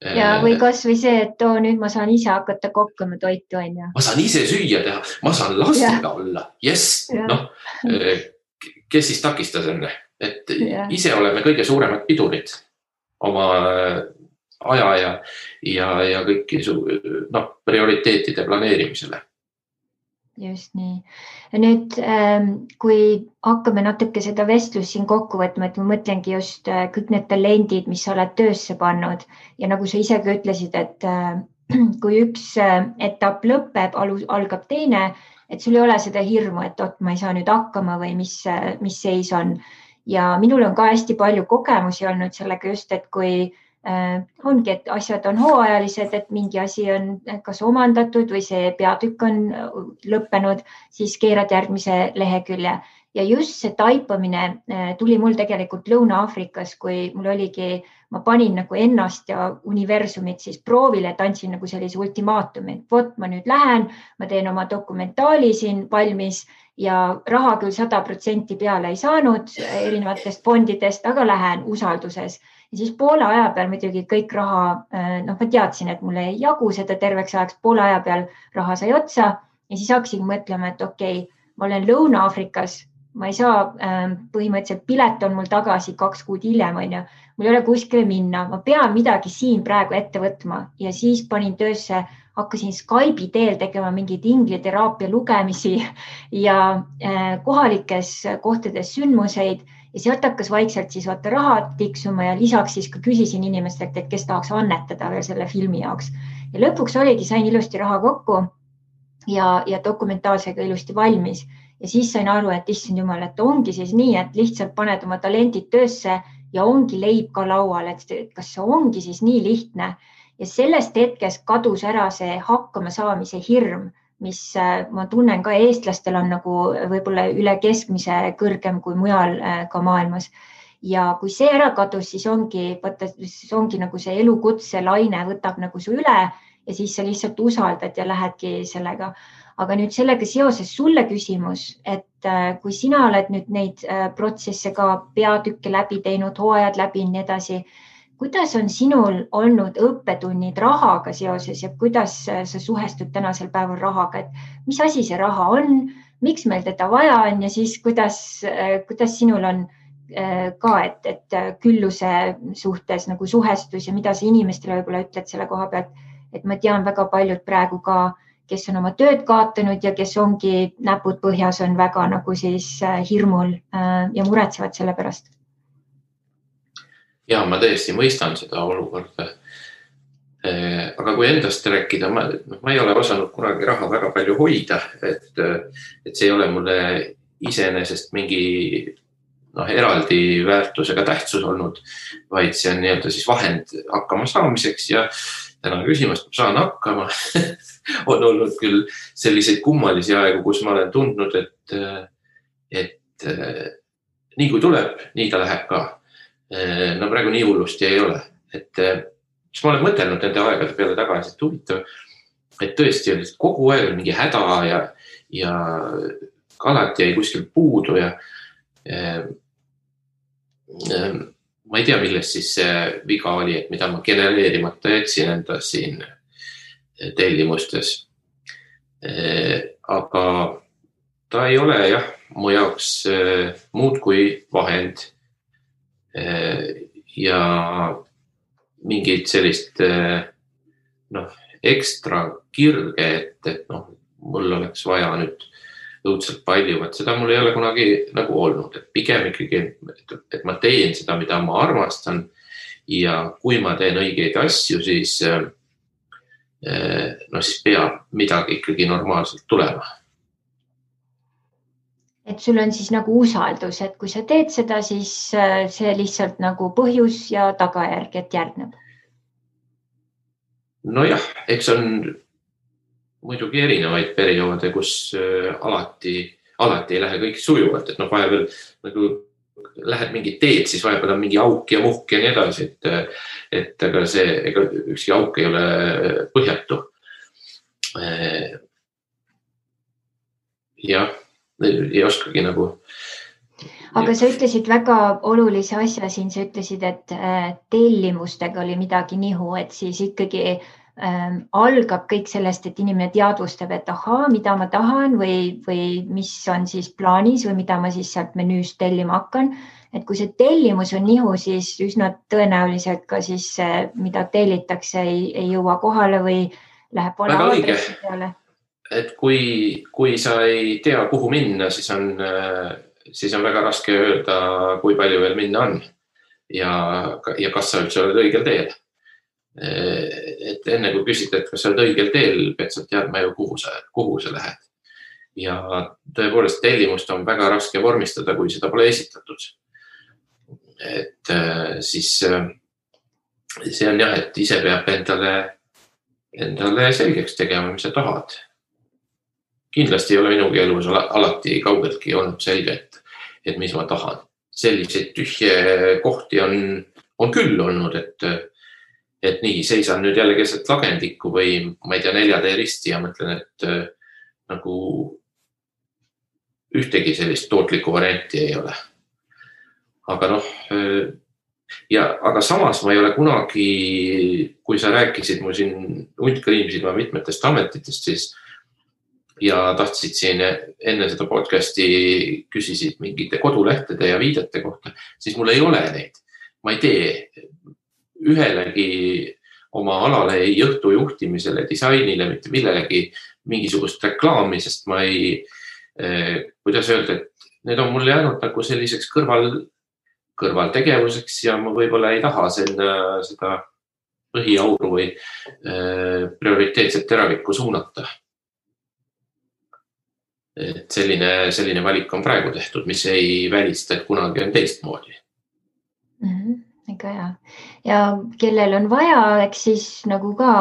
Ja või kas või see, et nüüd ma saan ise hakata kokkama toitu, on ju. Ma saan ise süüa teha, ma saan lastega olla. Yes, noh, kes siis takistas enne? Et ise oleme kõige suuremad pidurid oma aja ja kõiki prioriteetide planeerimisele. Just nii. Nüüd, kui hakkame natuke seda vestlust siin kokku võtma, et ma mõtlengi just kõik need talendid, mis sa oled töösse pannud ja nagu sa ise ka ütlesid, et kui üks etapp lõpeb, algab teine, et sul ei ole seda hirmu, et ma ei saa nüüd hakkama või mis seis on. Ja minul on ka hästi palju kogemusi olnud sellega just, et kui ongi, et asjad on hooajalised, et mingi asi on kas omandatud või see peatükk on lõppenud, siis keerad järgmise lehekülje. Ja just see taipamine tuli mul tegelikult Lõuna-Aafrikas, kui mul oligi, ma panin nagu ennast ja universumit siis proovile, et andsin nagu sellise ultimaatumi. Vot ma nüüd lähen, ma teen oma dokumentaali siin valmis ja raha küll 100% peale ei saanud erinevatest fondidest, aga lähen usalduses. Ja siis poole aja peal muidugi kõik raha, ma teadsin, et mulle ei jagu seda terveks ajaks, poole aja peal raha sai otsa ja siis hakkasin mõtlema, et okei, ma olen Lõuna-Aafrikas, ma ei saa, põhimõtteliselt pilet on mul tagasi 2 kuud hiljem, on ju, mul ei ole kuskile minna, ma pean midagi siin praegu ette võtma ja siis panin töösse, hakkasin Skype'i teel tegema mingeid ingliteraapia lugemisi ja kohalikes kohtades sündmuseid. Ja sealt hakkas vaikselt siis vaata raha tiksuma ja lisaks siis ka küsisin inimestelt, et kes tahaks annetada veel selle filmi jaoks. Ja lõpuks oligi, sain ilusti raha kokku ja dokumentaalsega ilusti valmis. Ja siis sain aru, et issand jumal, et ongi siis nii, et lihtsalt paned oma talendid töösse ja ongi leib ka laual, et kas see ongi siis nii lihtne. Ja sellest hetkest kadus ära see hakkama saamise hirm, mis ma tunnen ka eestlastel on nagu võib-olla üle keskmise kõrgem kui mujal ka maailmas. Ja kui see ära kadus, siis ongi nagu see elukutse laine võtab nagu su üle ja siis sa lihtsalt usaldad ja lähedki sellega. Aga nüüd sellega seoses sulle küsimus, et kui sina oled nüüd neid protsesse ka peatükke läbi teinud, hooajad läbi ja nii edasi, kuidas on sinul olnud õppetunnid rahaga seoses ja kuidas sa suhestud tänasel päeval rahaga, et mis asi see raha on, miks meil teda vaja on ja siis kuidas sinul on ka, et külluse suhtes nagu suhestus ja mida sa inimestele võib-olla ütled selle koha pealt, et ma tean väga paljud praegu ka, kes on oma tööd kaotanud ja kes ongi näpud põhjas, on väga nagu siis hirmul ja muretsevad selle pärast. Ja ma tõesti mõistan seda olukorda. Aga kui endast rääkida, ma ei ole osanud kunagi raha väga palju hoida, et see ei ole mulle iseenesest mingi eraldi väärtusega tähtsus olnud, vaid see on nii-öelda siis vahend hakkama saamiseks ja täna küsimus, ma saan hakkama. On olnud küll selliseid kummalisi aegu, kus ma olen tundnud, et nii kui tuleb, nii ta läheb ka. No praegu nii hullusti ei ole, et ma olen mõtelnud nende aegade peale tagasi, et huvitav, et tõesti oli kogu aeg mingi häda ja alati jäi kuskil puudu ja ma ei tea, millest siis see viga oli, et mida ma genereerimata jätsin enda siin tellimustes. Aga ta ei ole mu jaoks muud kui vahend ja mingid sellist ekstra kirge, et mul oleks vaja nüüd õudselt palju, et seda mul ei ole kunagi nagu olnud, et pigem ikkagi, et ma teen seda, mida ma armastan ja kui ma teen õigeid asju, siis peab midagi ikkagi normaalselt tulema. Et sul on siis nagu usaldus, et kui sa teed seda, siis see lihtsalt nagu põhjus ja tagajärg, et järgneb. Nojah, eks on muidugi erinevaid perioode, kus alati ei lähe kõik sujuvalt, et vahepeal nagu lähed mingi teed, siis vahepeal on mingi auk ja muhk ja nii edasi, et ega ükski auk ei ole põhjatu. Jah. Ei oskagi nagu. Aga sa ütlesid väga olulise asja siin, sa ütlesid, et tellimustega oli midagi nihu, et siis ikkagi algab kõik sellest, et inimene teadvustab, et ahaa, mida ma tahan või mis on siis plaanis või mida ma siis sealt menüüst tellima hakkan. Et kui see tellimus on nihu, siis üsna tõenäoliselt ka siis mida tellitakse ei jõua kohale või läheb vale aadressi peale. Et kui sa ei tea, kuhu minna, siis on väga raske öelda, kui palju veel minna on ja kas sa üldse oled õigel teel. Et enne kui küsid, et kas sa oled õigel teel, pead sa teadma ju, kuhu sa lähed. Ja tõepoolest tellimust on väga raske vormistada, kui seda pole esitatud. Et siis see on jah, et ise peab endale selgeks tegema, mis sa tahad. Kindlasti ei ole minugi elus alati kaugeltki olnud selge, et mis ma tahan. Selliseid tühje kohti on küll olnud, et nii seisan nüüd jälle keset lagendikku või ma ei tea, 4 risti ja mõtlen, et nagu ühtegi sellist tootlikku varianti ei ole. Aga aga samas ma ei ole kunagi, kui sa rääkisid mu siin hundkriimsid ma mitmetest ametitest, siis ja tahtsid siin enne seda podcasti küsisid mingite kodulehtede ja viidete kohta, siis mul ei ole neid. Ma ei tee ühelegi oma alale ei õhtu juhtimisele, disainile, mitte millelegi mingisugust reklaami, sest ma ei, kuidas öelda, et need on mul jäänud nagu selliseks kõrvaltegevuseks ja ma võib-olla ei taha seda põhiauru või prioriteetset teravikku suunata. Et selline valik on praegu tehtud, mis ei välista, et kunagi on teistmoodi. Ega hea. Ja kellel on vaja, eks siis nagu ka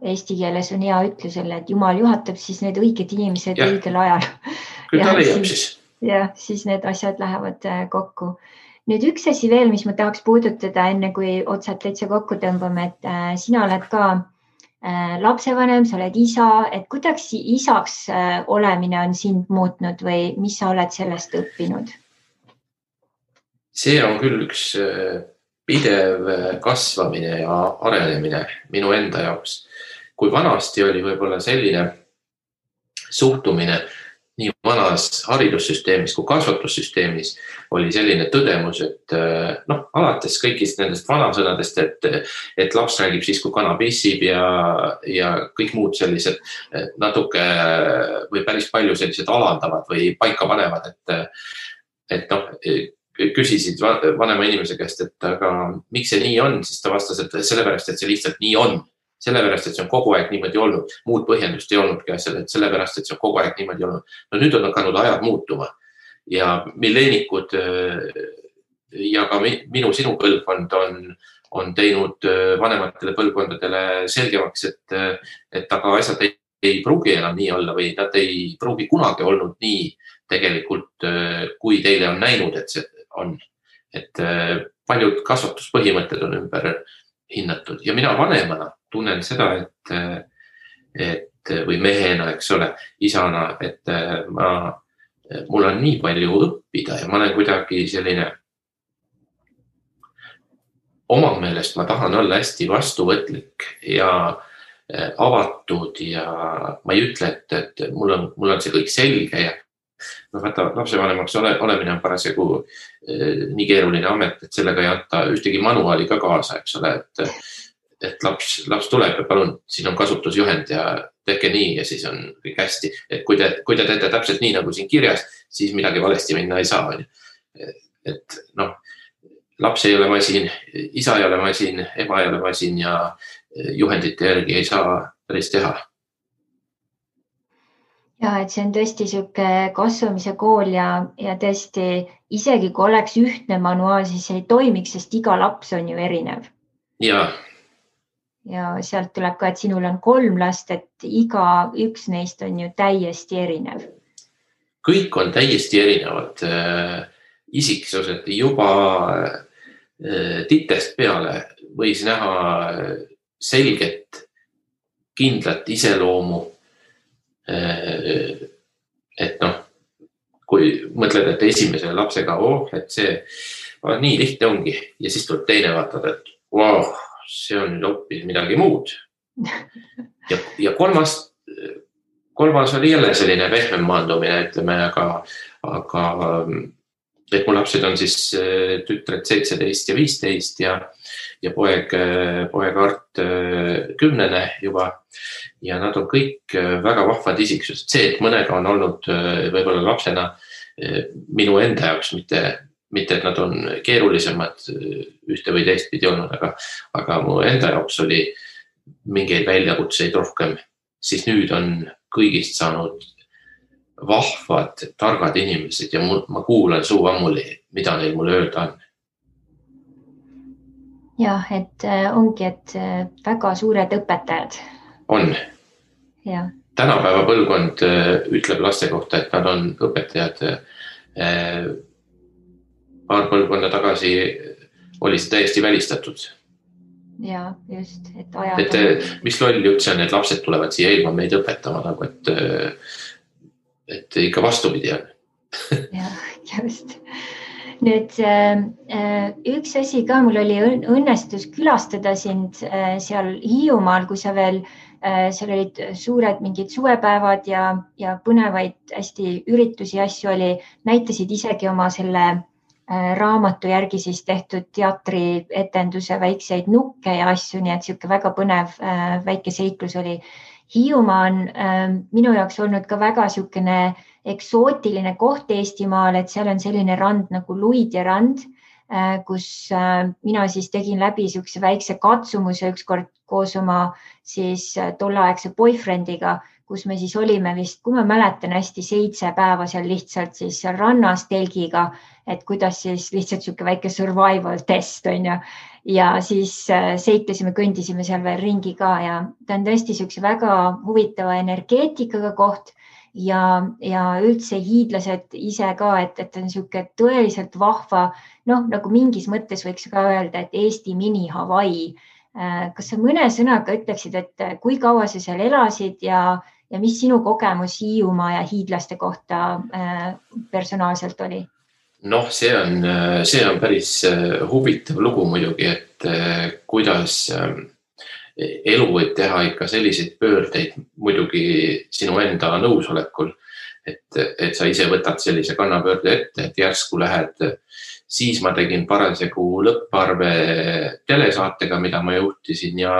eesti keeles on hea ütlusele, et Jumal juhatab siis need õiged inimesed õigel ajal. Küll ta leiab siis. Ja siis need asjad lähevad kokku. Nüüd üks asi veel, mis ma tahaks puudutada enne, kui otsad täitsa kokku tõmbame, et sina oled ka lapsevanem, sa oled isa, et kuidas isaks olemine on sind muutnud või mis sa oled sellest õppinud? See on küll üks pidev kasvamine ja arenemine minu enda jaoks. Kui vanasti oli võib-olla selline suhtumine nii vanas haridussüsteemis kui kasvatussüsteemis oli selline tõdemus, et alates kõigist nendest vanasõnadest, et laps räägib siis, kui kana pissib ja kõik muud sellised natuke või päris palju sellised alandavad või paika panevad, et küsisid vanema inimese käest, et aga miks see nii on, siis ta vastas, et sellepärast, et see lihtsalt nii on. Sellepärast, et see on kogu aeg niimoodi olnud. Muud põhjendust ei olnudki asjale, et sellepärast, et see on kogu aeg niimoodi olnud. No nüüd on hakanud ajad muutuma ja milleenikud ja ka sinu põlvkond on teinud vanematele põlvkondadele selgemaks, et aga asjad ei pruugi enam nii olla või nad ei pruugi kunagi olnud nii tegelikult, kui teile on näinud, et see on. Et paljud kasvatuspõhimõtted on ümber hinnatud ja mina vanemana tunnen seda, et või mehena, eks ole, isana, et mul on nii palju õppida ja ma olen kuidagi selline oma meelest ma tahan olla hästi vastuvõtlik ja avatud ja ma ei ütle, et mul on see kõik selge ja vaata, lapsevanemaks olemine on parasjagu nii keeruline amet, et sellega ei anta ühtegi manuaali ka kaasa, eks ole, et laps tuleb ja palun, siin on kasutusjuhend ja tehke nii ja siis on kõik hästi. Et kui te teete täpselt nii, nagu siin kirjas, siis midagi valesti minna ei saa. Et laps ei ole masin, isa ei ole masin, ema ei ole masin ja juhendite järgi ei saa päris teha. Ja, et see on tõesti siuke kasvamise kool ja tõesti isegi kui oleks ühtne manuaal, siis ei toimiks, sest iga laps on ju erinev. Ja sealt tuleb ka, et sinul on 3 last, et iga üks neist on ju täiesti erinev. Kõik on täiesti erinevad isiksused. Juba titest peale võis näha selget, kindlat iseloomu. Et kui mõtled mõtled, et esimese lapsega, et see nii lihtne ongi ja siis tuleb teine vaatad, et wow, see on nüüd hoopis midagi muud. Ja kolmas oli jälle selline pehmem maandumine, ütleme, aga et mu lapsed on siis tütred 17 ja 15 ja poeg Art 10 juba ja nad on kõik väga vahvad isiksused. See, et mõnega on olnud võib-olla lapsena minu enda jaoks, mitte et nad on keerulisemad ühte või teist pidi olnud, aga mu enda jaoks oli mingeid väljakutseid rohkem, siis nüüd on kõigist saanud vahvad, targad inimesed ja ma kuulan suu ammuli, mida neil mulle öelda on. Jah, et ongi, et väga suured õpetajad. On. Ja. Tänapäeva põlvkond ütleb laste kohta, et nad on õpetajad. Paar põlvkonda tagasi oli see täiesti välistatud. Ja, just. Mis loll jutt see on, et lapsed tulevad siia ilma meid õpetama, nagu et ikka vastupidi on. Ja, just. Nüüd üks asi ka, mul oli õnnestus külastada sind seal Hiiumaal, kui sa veel, seal olid suured mingid suvepäevad ja põnevaid hästi üritusi asju oli, näitasid isegi oma selle raamatu järgi siis tehtud teatrietenduse väikseid nukke ja asju, nii et siuke väga põnev väike seiklus oli. Hiiumaa on minu jaoks olnud ka väga siukene eksootiline koht Eestimaal, et seal on selline rand nagu Luidja rand, kus mina siis tegin läbi siukse väikse katsumuse ükskord koos oma siis tolleaegse boyfriendiga, kus me siis olime vist, kui ma mäletan hästi 7 päeva seal lihtsalt siis seal rannas telgiga, et kuidas siis lihtsalt siuke väike survival test on ju. Ja siis seiklesime, kõndisime seal veel ringi ka ja ta on tõesti siukse väga huvitava energeetikaga koht ja üldse hiidlased ise ka, et on siuke tõeliselt vahva, nagu mingis mõttes võiks ka öelda, et Eesti mini Hawaii. Kas sa mõne sõnaga ütleksid, et kui kaua sa seal elasid ja mis sinu kogemus Hiiumaa ja hiidlaste kohta personaalselt oli? See on päris huvitav lugu muidugi, et kuidas elu võib teha ikka selliseid pöördeid muidugi sinu enda nõusolekul, et sa ise võtad sellise kannapöörde ette, et järsku lähed. Siis ma tegin parasjagu lõpparve telesaatega, mida ma juhtisin ja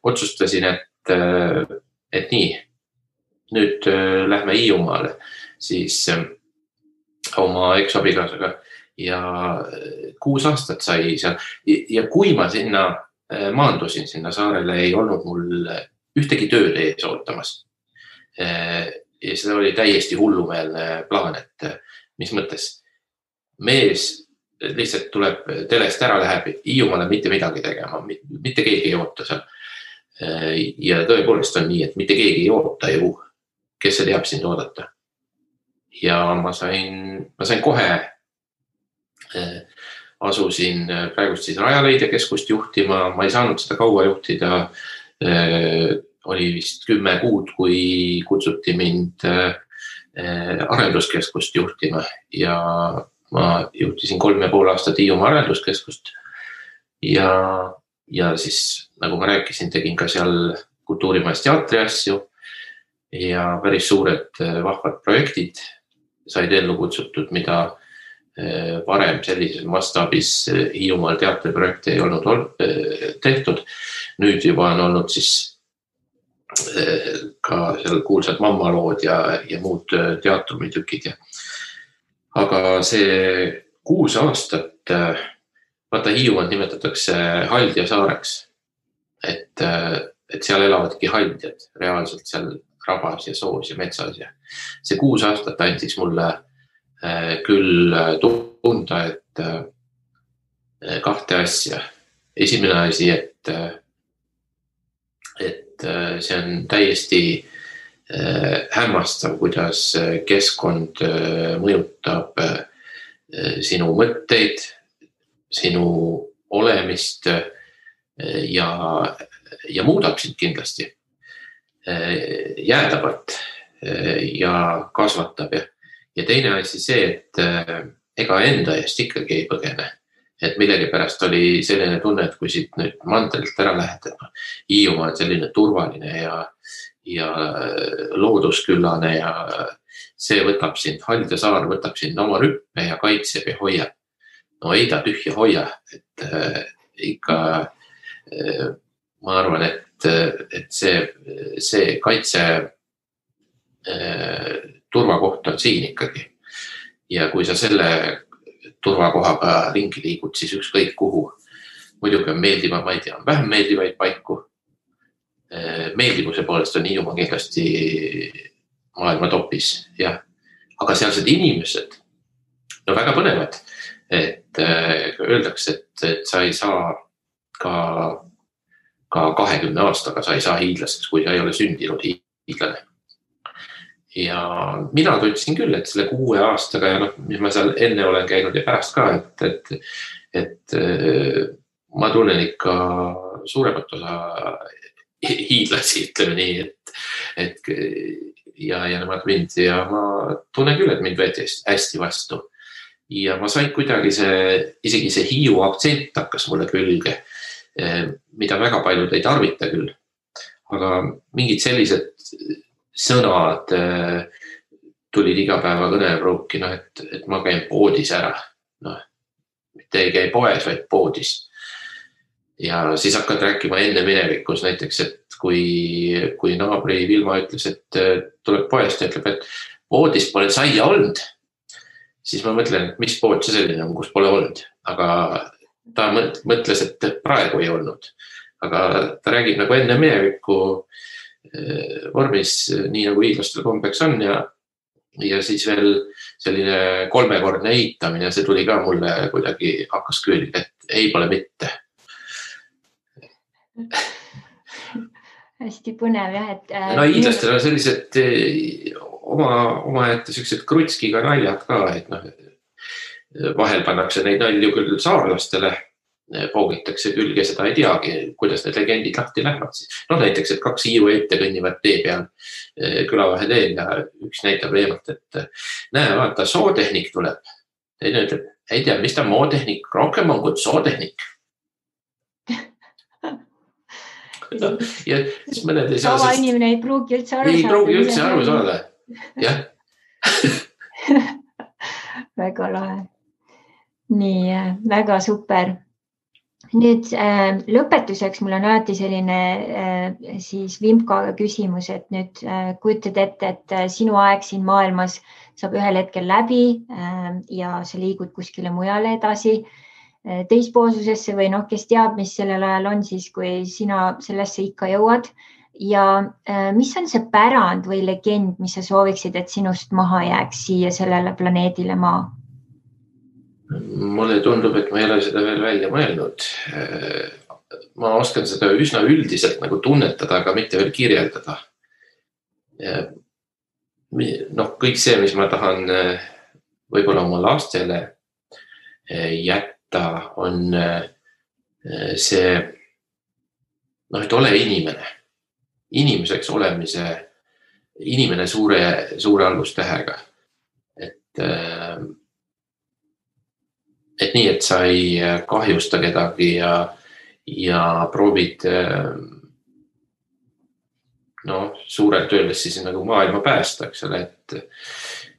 otsustasin, et nii, nüüd lähme Hiiumaale siis oma eksabigasaga ja 6 aastat sai seal ja kui ma sinna maandusin sinna saarele, ei olnud mul ühtegi tööd ees ootamas. Ja seda oli täiesti hullumeelne plaan, et mis mõttes mees lihtsalt tuleb telest ära, läheb Hiiumaale mitte midagi tegema, mitte keegi ei oota seal. Ja tõepoolest on nii, et mitte keegi ei oota ju, kes see teab sind oodata. Ja ma sain kohe, asusin praegust siis Rajaleidja keskust juhtima, ma ei saanud seda kaua juhtida, oli vist 10 kuud, kui kutsuti mind arenduskeskust juhtima ja ma juhtisin 3,5 aastat Hiiumaa arenduskeskust ja siis, nagu ma rääkisin, tegin ka seal Kultuurimajas teatri asju ja päris suured vahvad projektid said ellu kutsutud, mida varem sellises mastaabis Hiiumaal teatriprojekte ei olnud tehtud. Nüüd juba on olnud siis ka seal kuulsad mammalood ja muud teatrumitükid. Aga see 6 aastat, vaata Hiiumaad nimetatakse Haldja saareks, et seal elavadki haldjad reaalselt seal rabas ja soos ja metsas ja see 6 aastat andis mulle küll tunda, et 2 asja. Esimene asi, et see on täiesti hämmastav, kuidas keskkond mõjutab sinu mõtteid, sinu olemist ja muudab sind kindlasti jäädavalt ja kasvatab ja teine asi see, et ega enda eest ikkagi ei põgene. Et millegi pärast oli selline tunne, et kui siit nüüd mandrilt ära lähed, et Hiiumaa on selline turvaline ja loodusküllane ja see võtab sind, Haldja saar võtab sind oma rüppe ja kaitseb ja hoiab. No ei ta tühja hoia, et ikka ma arvan, et see kaitse turvakoht on siin ikkagi. Ja kui sa selle turvakohaga ringi liigud, siis ükskõik kuhu. Muidugi on meeldiva, ma ei tea, vähem meeldivaid paiku. Meeldivuse poolest on Hiiumaa kindlasti maailma topis, jah. Aga sealsed inimesed, no väga põnevad, et öeldakse, et sa ei saa ka 20 aastaga sa ei saa hiidlaseks, kui sa ei ole sündinud hiidlane. Ja mina tundsin küll, et selle 6 aastaga ja mis ma seal enne olen käinud ja pärast ka, et ma tunnen ikka suuremat osa hiidlasi, ütleme nii, et ja nemad mind ja ma tunnen küll, et mind võeti hästi vastu. Ja ma sain kuidagi isegi see Hiiu aktsent hakkas mulle külge, mida väga paljud ei tarvita küll. Aga mingid sellised sõnad tulid iga päeva kõnepruuki, et ma käin poodis ära. Mitte ei käi poes, vaid poodis. Ja siis hakkad rääkima enne minevikus näiteks, et kui naabri Vilma ütles, et tuleb poest ja ütleb, et poodis pole saia olnud, siis ma mõtlen, et mis pood see selline on, kus pole olnud. Aga ta mõtles, et praegu ei olnud. Aga ta räägib nagu enne minevikku vormis, nii nagu hiidlastel kombeks on ja siis veel selline 3-kordne eitamine, see tuli ka mulle kuidagi hakkas külge, et ei pole mitte. Hästi põnev jah, et hiidlastel on sellised omaette sellised krutskiga naljad ka, et vahel pannakse neid nalju küll saarlastele, poogitakse külge, seda ei teagi, kuidas need legendid lahti lähevad. Näiteks, et 2 Hiiu ette kõnnivad tee peal külavahe teel ja üks näitab eemalt, et näe, vaata, sootehnik tuleb. Teine ütleb, ei tea, mis ta mootehnik, rohkem on kui sootehnik. Ja siis mõned ei saa... Sama inimene ei pruugi üldse aru saada. Ei pruugi üldse aru saada, jah. Väga lahe. Nii, väga super. Nüüd lõpetuseks mul on alati selline siis Vimkaga küsimus, et nüüd kujutad ette, et sinu aeg siin maailmas saab ühel hetkel läbi ja sa liigud kuskile mujale edasi teispoolsusesse või kes teab, mis sellel ajal on siis, kui sina sellesse ikka jõuad. Ja mis on see pärand või legend, mis sa sooviksid, et sinust maha jääks siia sellele planeedile Maa? Mulle tundub, et ma ei ole seda veel välja mõelnud. Ma oskan seda üsna üldiselt nagu tunnetada, aga mitte veel kirjeldada. Kõik see, mis ma tahan võib-olla oma lastele jätta, on see, et ole inimene. Inimeseks olemise, inimene suure algustähega. Et nii, et sa ei kahjusta kedagi ja proovid suurelt öeldes siis nagu maailma päästa, eks ole,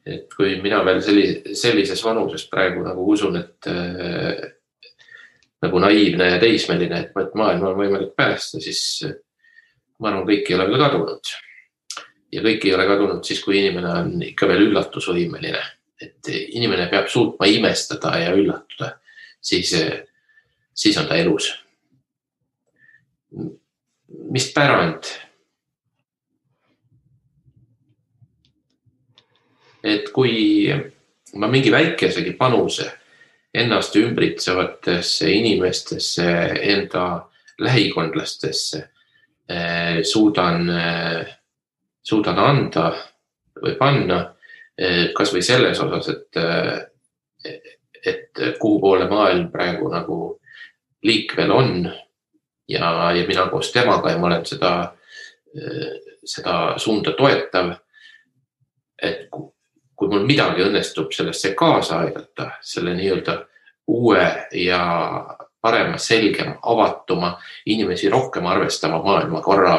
et kui mina veel sellises vanuses praegu nagu usun, et nagu naiivne ja teismeline, et maailma on võimalik päästa, siis ma arvan, kõik ei ole veel kadunud. Ja kõik ei ole kadunud siis, kui inimene on ikka veel üllatusvõimeline. Et inimene peab suutma imestada ja üllatuda, siis on ta elus. Mis pärand? Et kui ma mingi väikesegi panuse ennast ümbritsevatesse inimestesse, enda lähikondlastesse suudan anda või panna, kas või selles osas, et kuhu poole maailm praegu nagu liikvel on ja mina koos temaga ja ma olen seda suunda toetav, et kui kui mul midagi õnnestub sellesse kaasa aidata, selle nii-öelda uue ja parema, selgema, avatuma, inimesi rohkem arvestama maailmakorra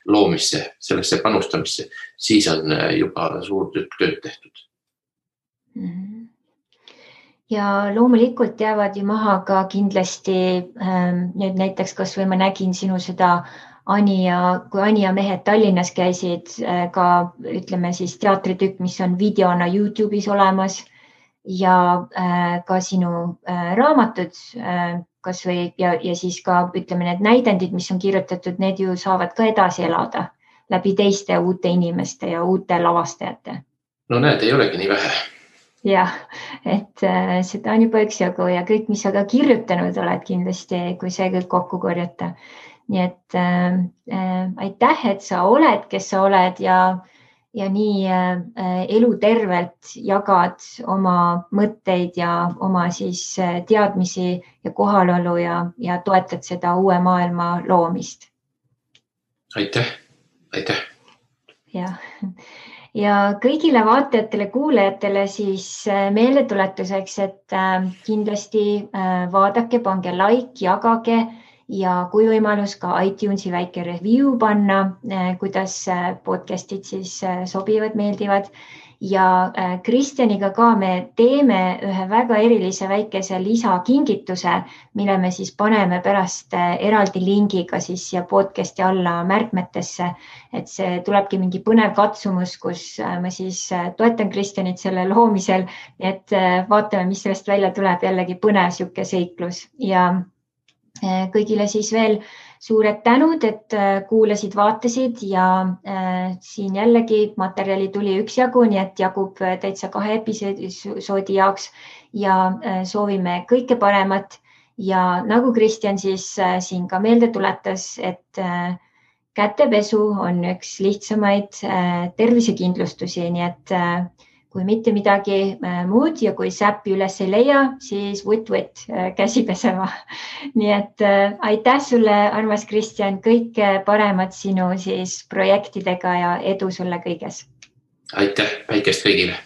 loomisse, sellesse panustamisse, siis on juba suur tükk tööd tehtud. Ja loomulikult jäävad ju maha ka kindlasti nüüd näiteks, kas või ma nägin sinu seda kui Ani ja mehed Tallinnas käisid, ka ütleme siis teatritükk, mis on videona YouTube'is olemas ja ka sinu raamatud kas või ja siis ka ütleme need näidendid, mis on kirjutatud, need ju saavad ka edasi elada läbi teiste uute inimeste ja uute lavastajate. No näed, ei olegi nii vähe. Jah, et seda on juba üksjagu ja kõik, mis sa ka kirjutanud oled kindlasti, kui see kõik kokku korjata. Nii et aitäh, et sa oled, kes sa oled ja nii elutervelt jagad oma mõtteid ja oma siis teadmisi ja kohalolu ja toetad seda uue maailma loomist. Aitäh, aitäh. Jah. Ja kõigile vaatajatele, kuulajatele siis meeldetuletuseks, et kindlasti vaadake, pange like, jagage ja kui võimalus ka iTunesi väike review panna, kuidas podcastid siis sobivad, meeldivad. Ja Kristjaniga ka me teeme ühe väga erilise väikese lisakingituse, mille me siis paneme pärast eraldi lingiga siis siia podcasti alla märkmetesse, et see tulebki mingi põnev katsumus, kus ma siis toetan Kristjanit selle loomisel, et vaatame, mis sellest välja tuleb, jällegi põnev siuke seiklus ja kõigile siis veel suured tänud, et kuulasid, vaatasid ja siin jällegi materjali tuli üksjagu, nii et jagub täitsa 2 episoodi jaoks ja soovime kõike paremat ja nagu Kristjan siis siin ka meelde tuletas, et kätepesu on üks lihtsamaid tervisekindlustusi, nii et kui mitte midagi muud ja kui säppi üles ei leia, siis võtt käsi pesema. Nii et aitäh sulle, armas Kristjan, kõike paremat sinu siis projektidega ja edu sulle kõiges. Aitäh, päikest kõigile.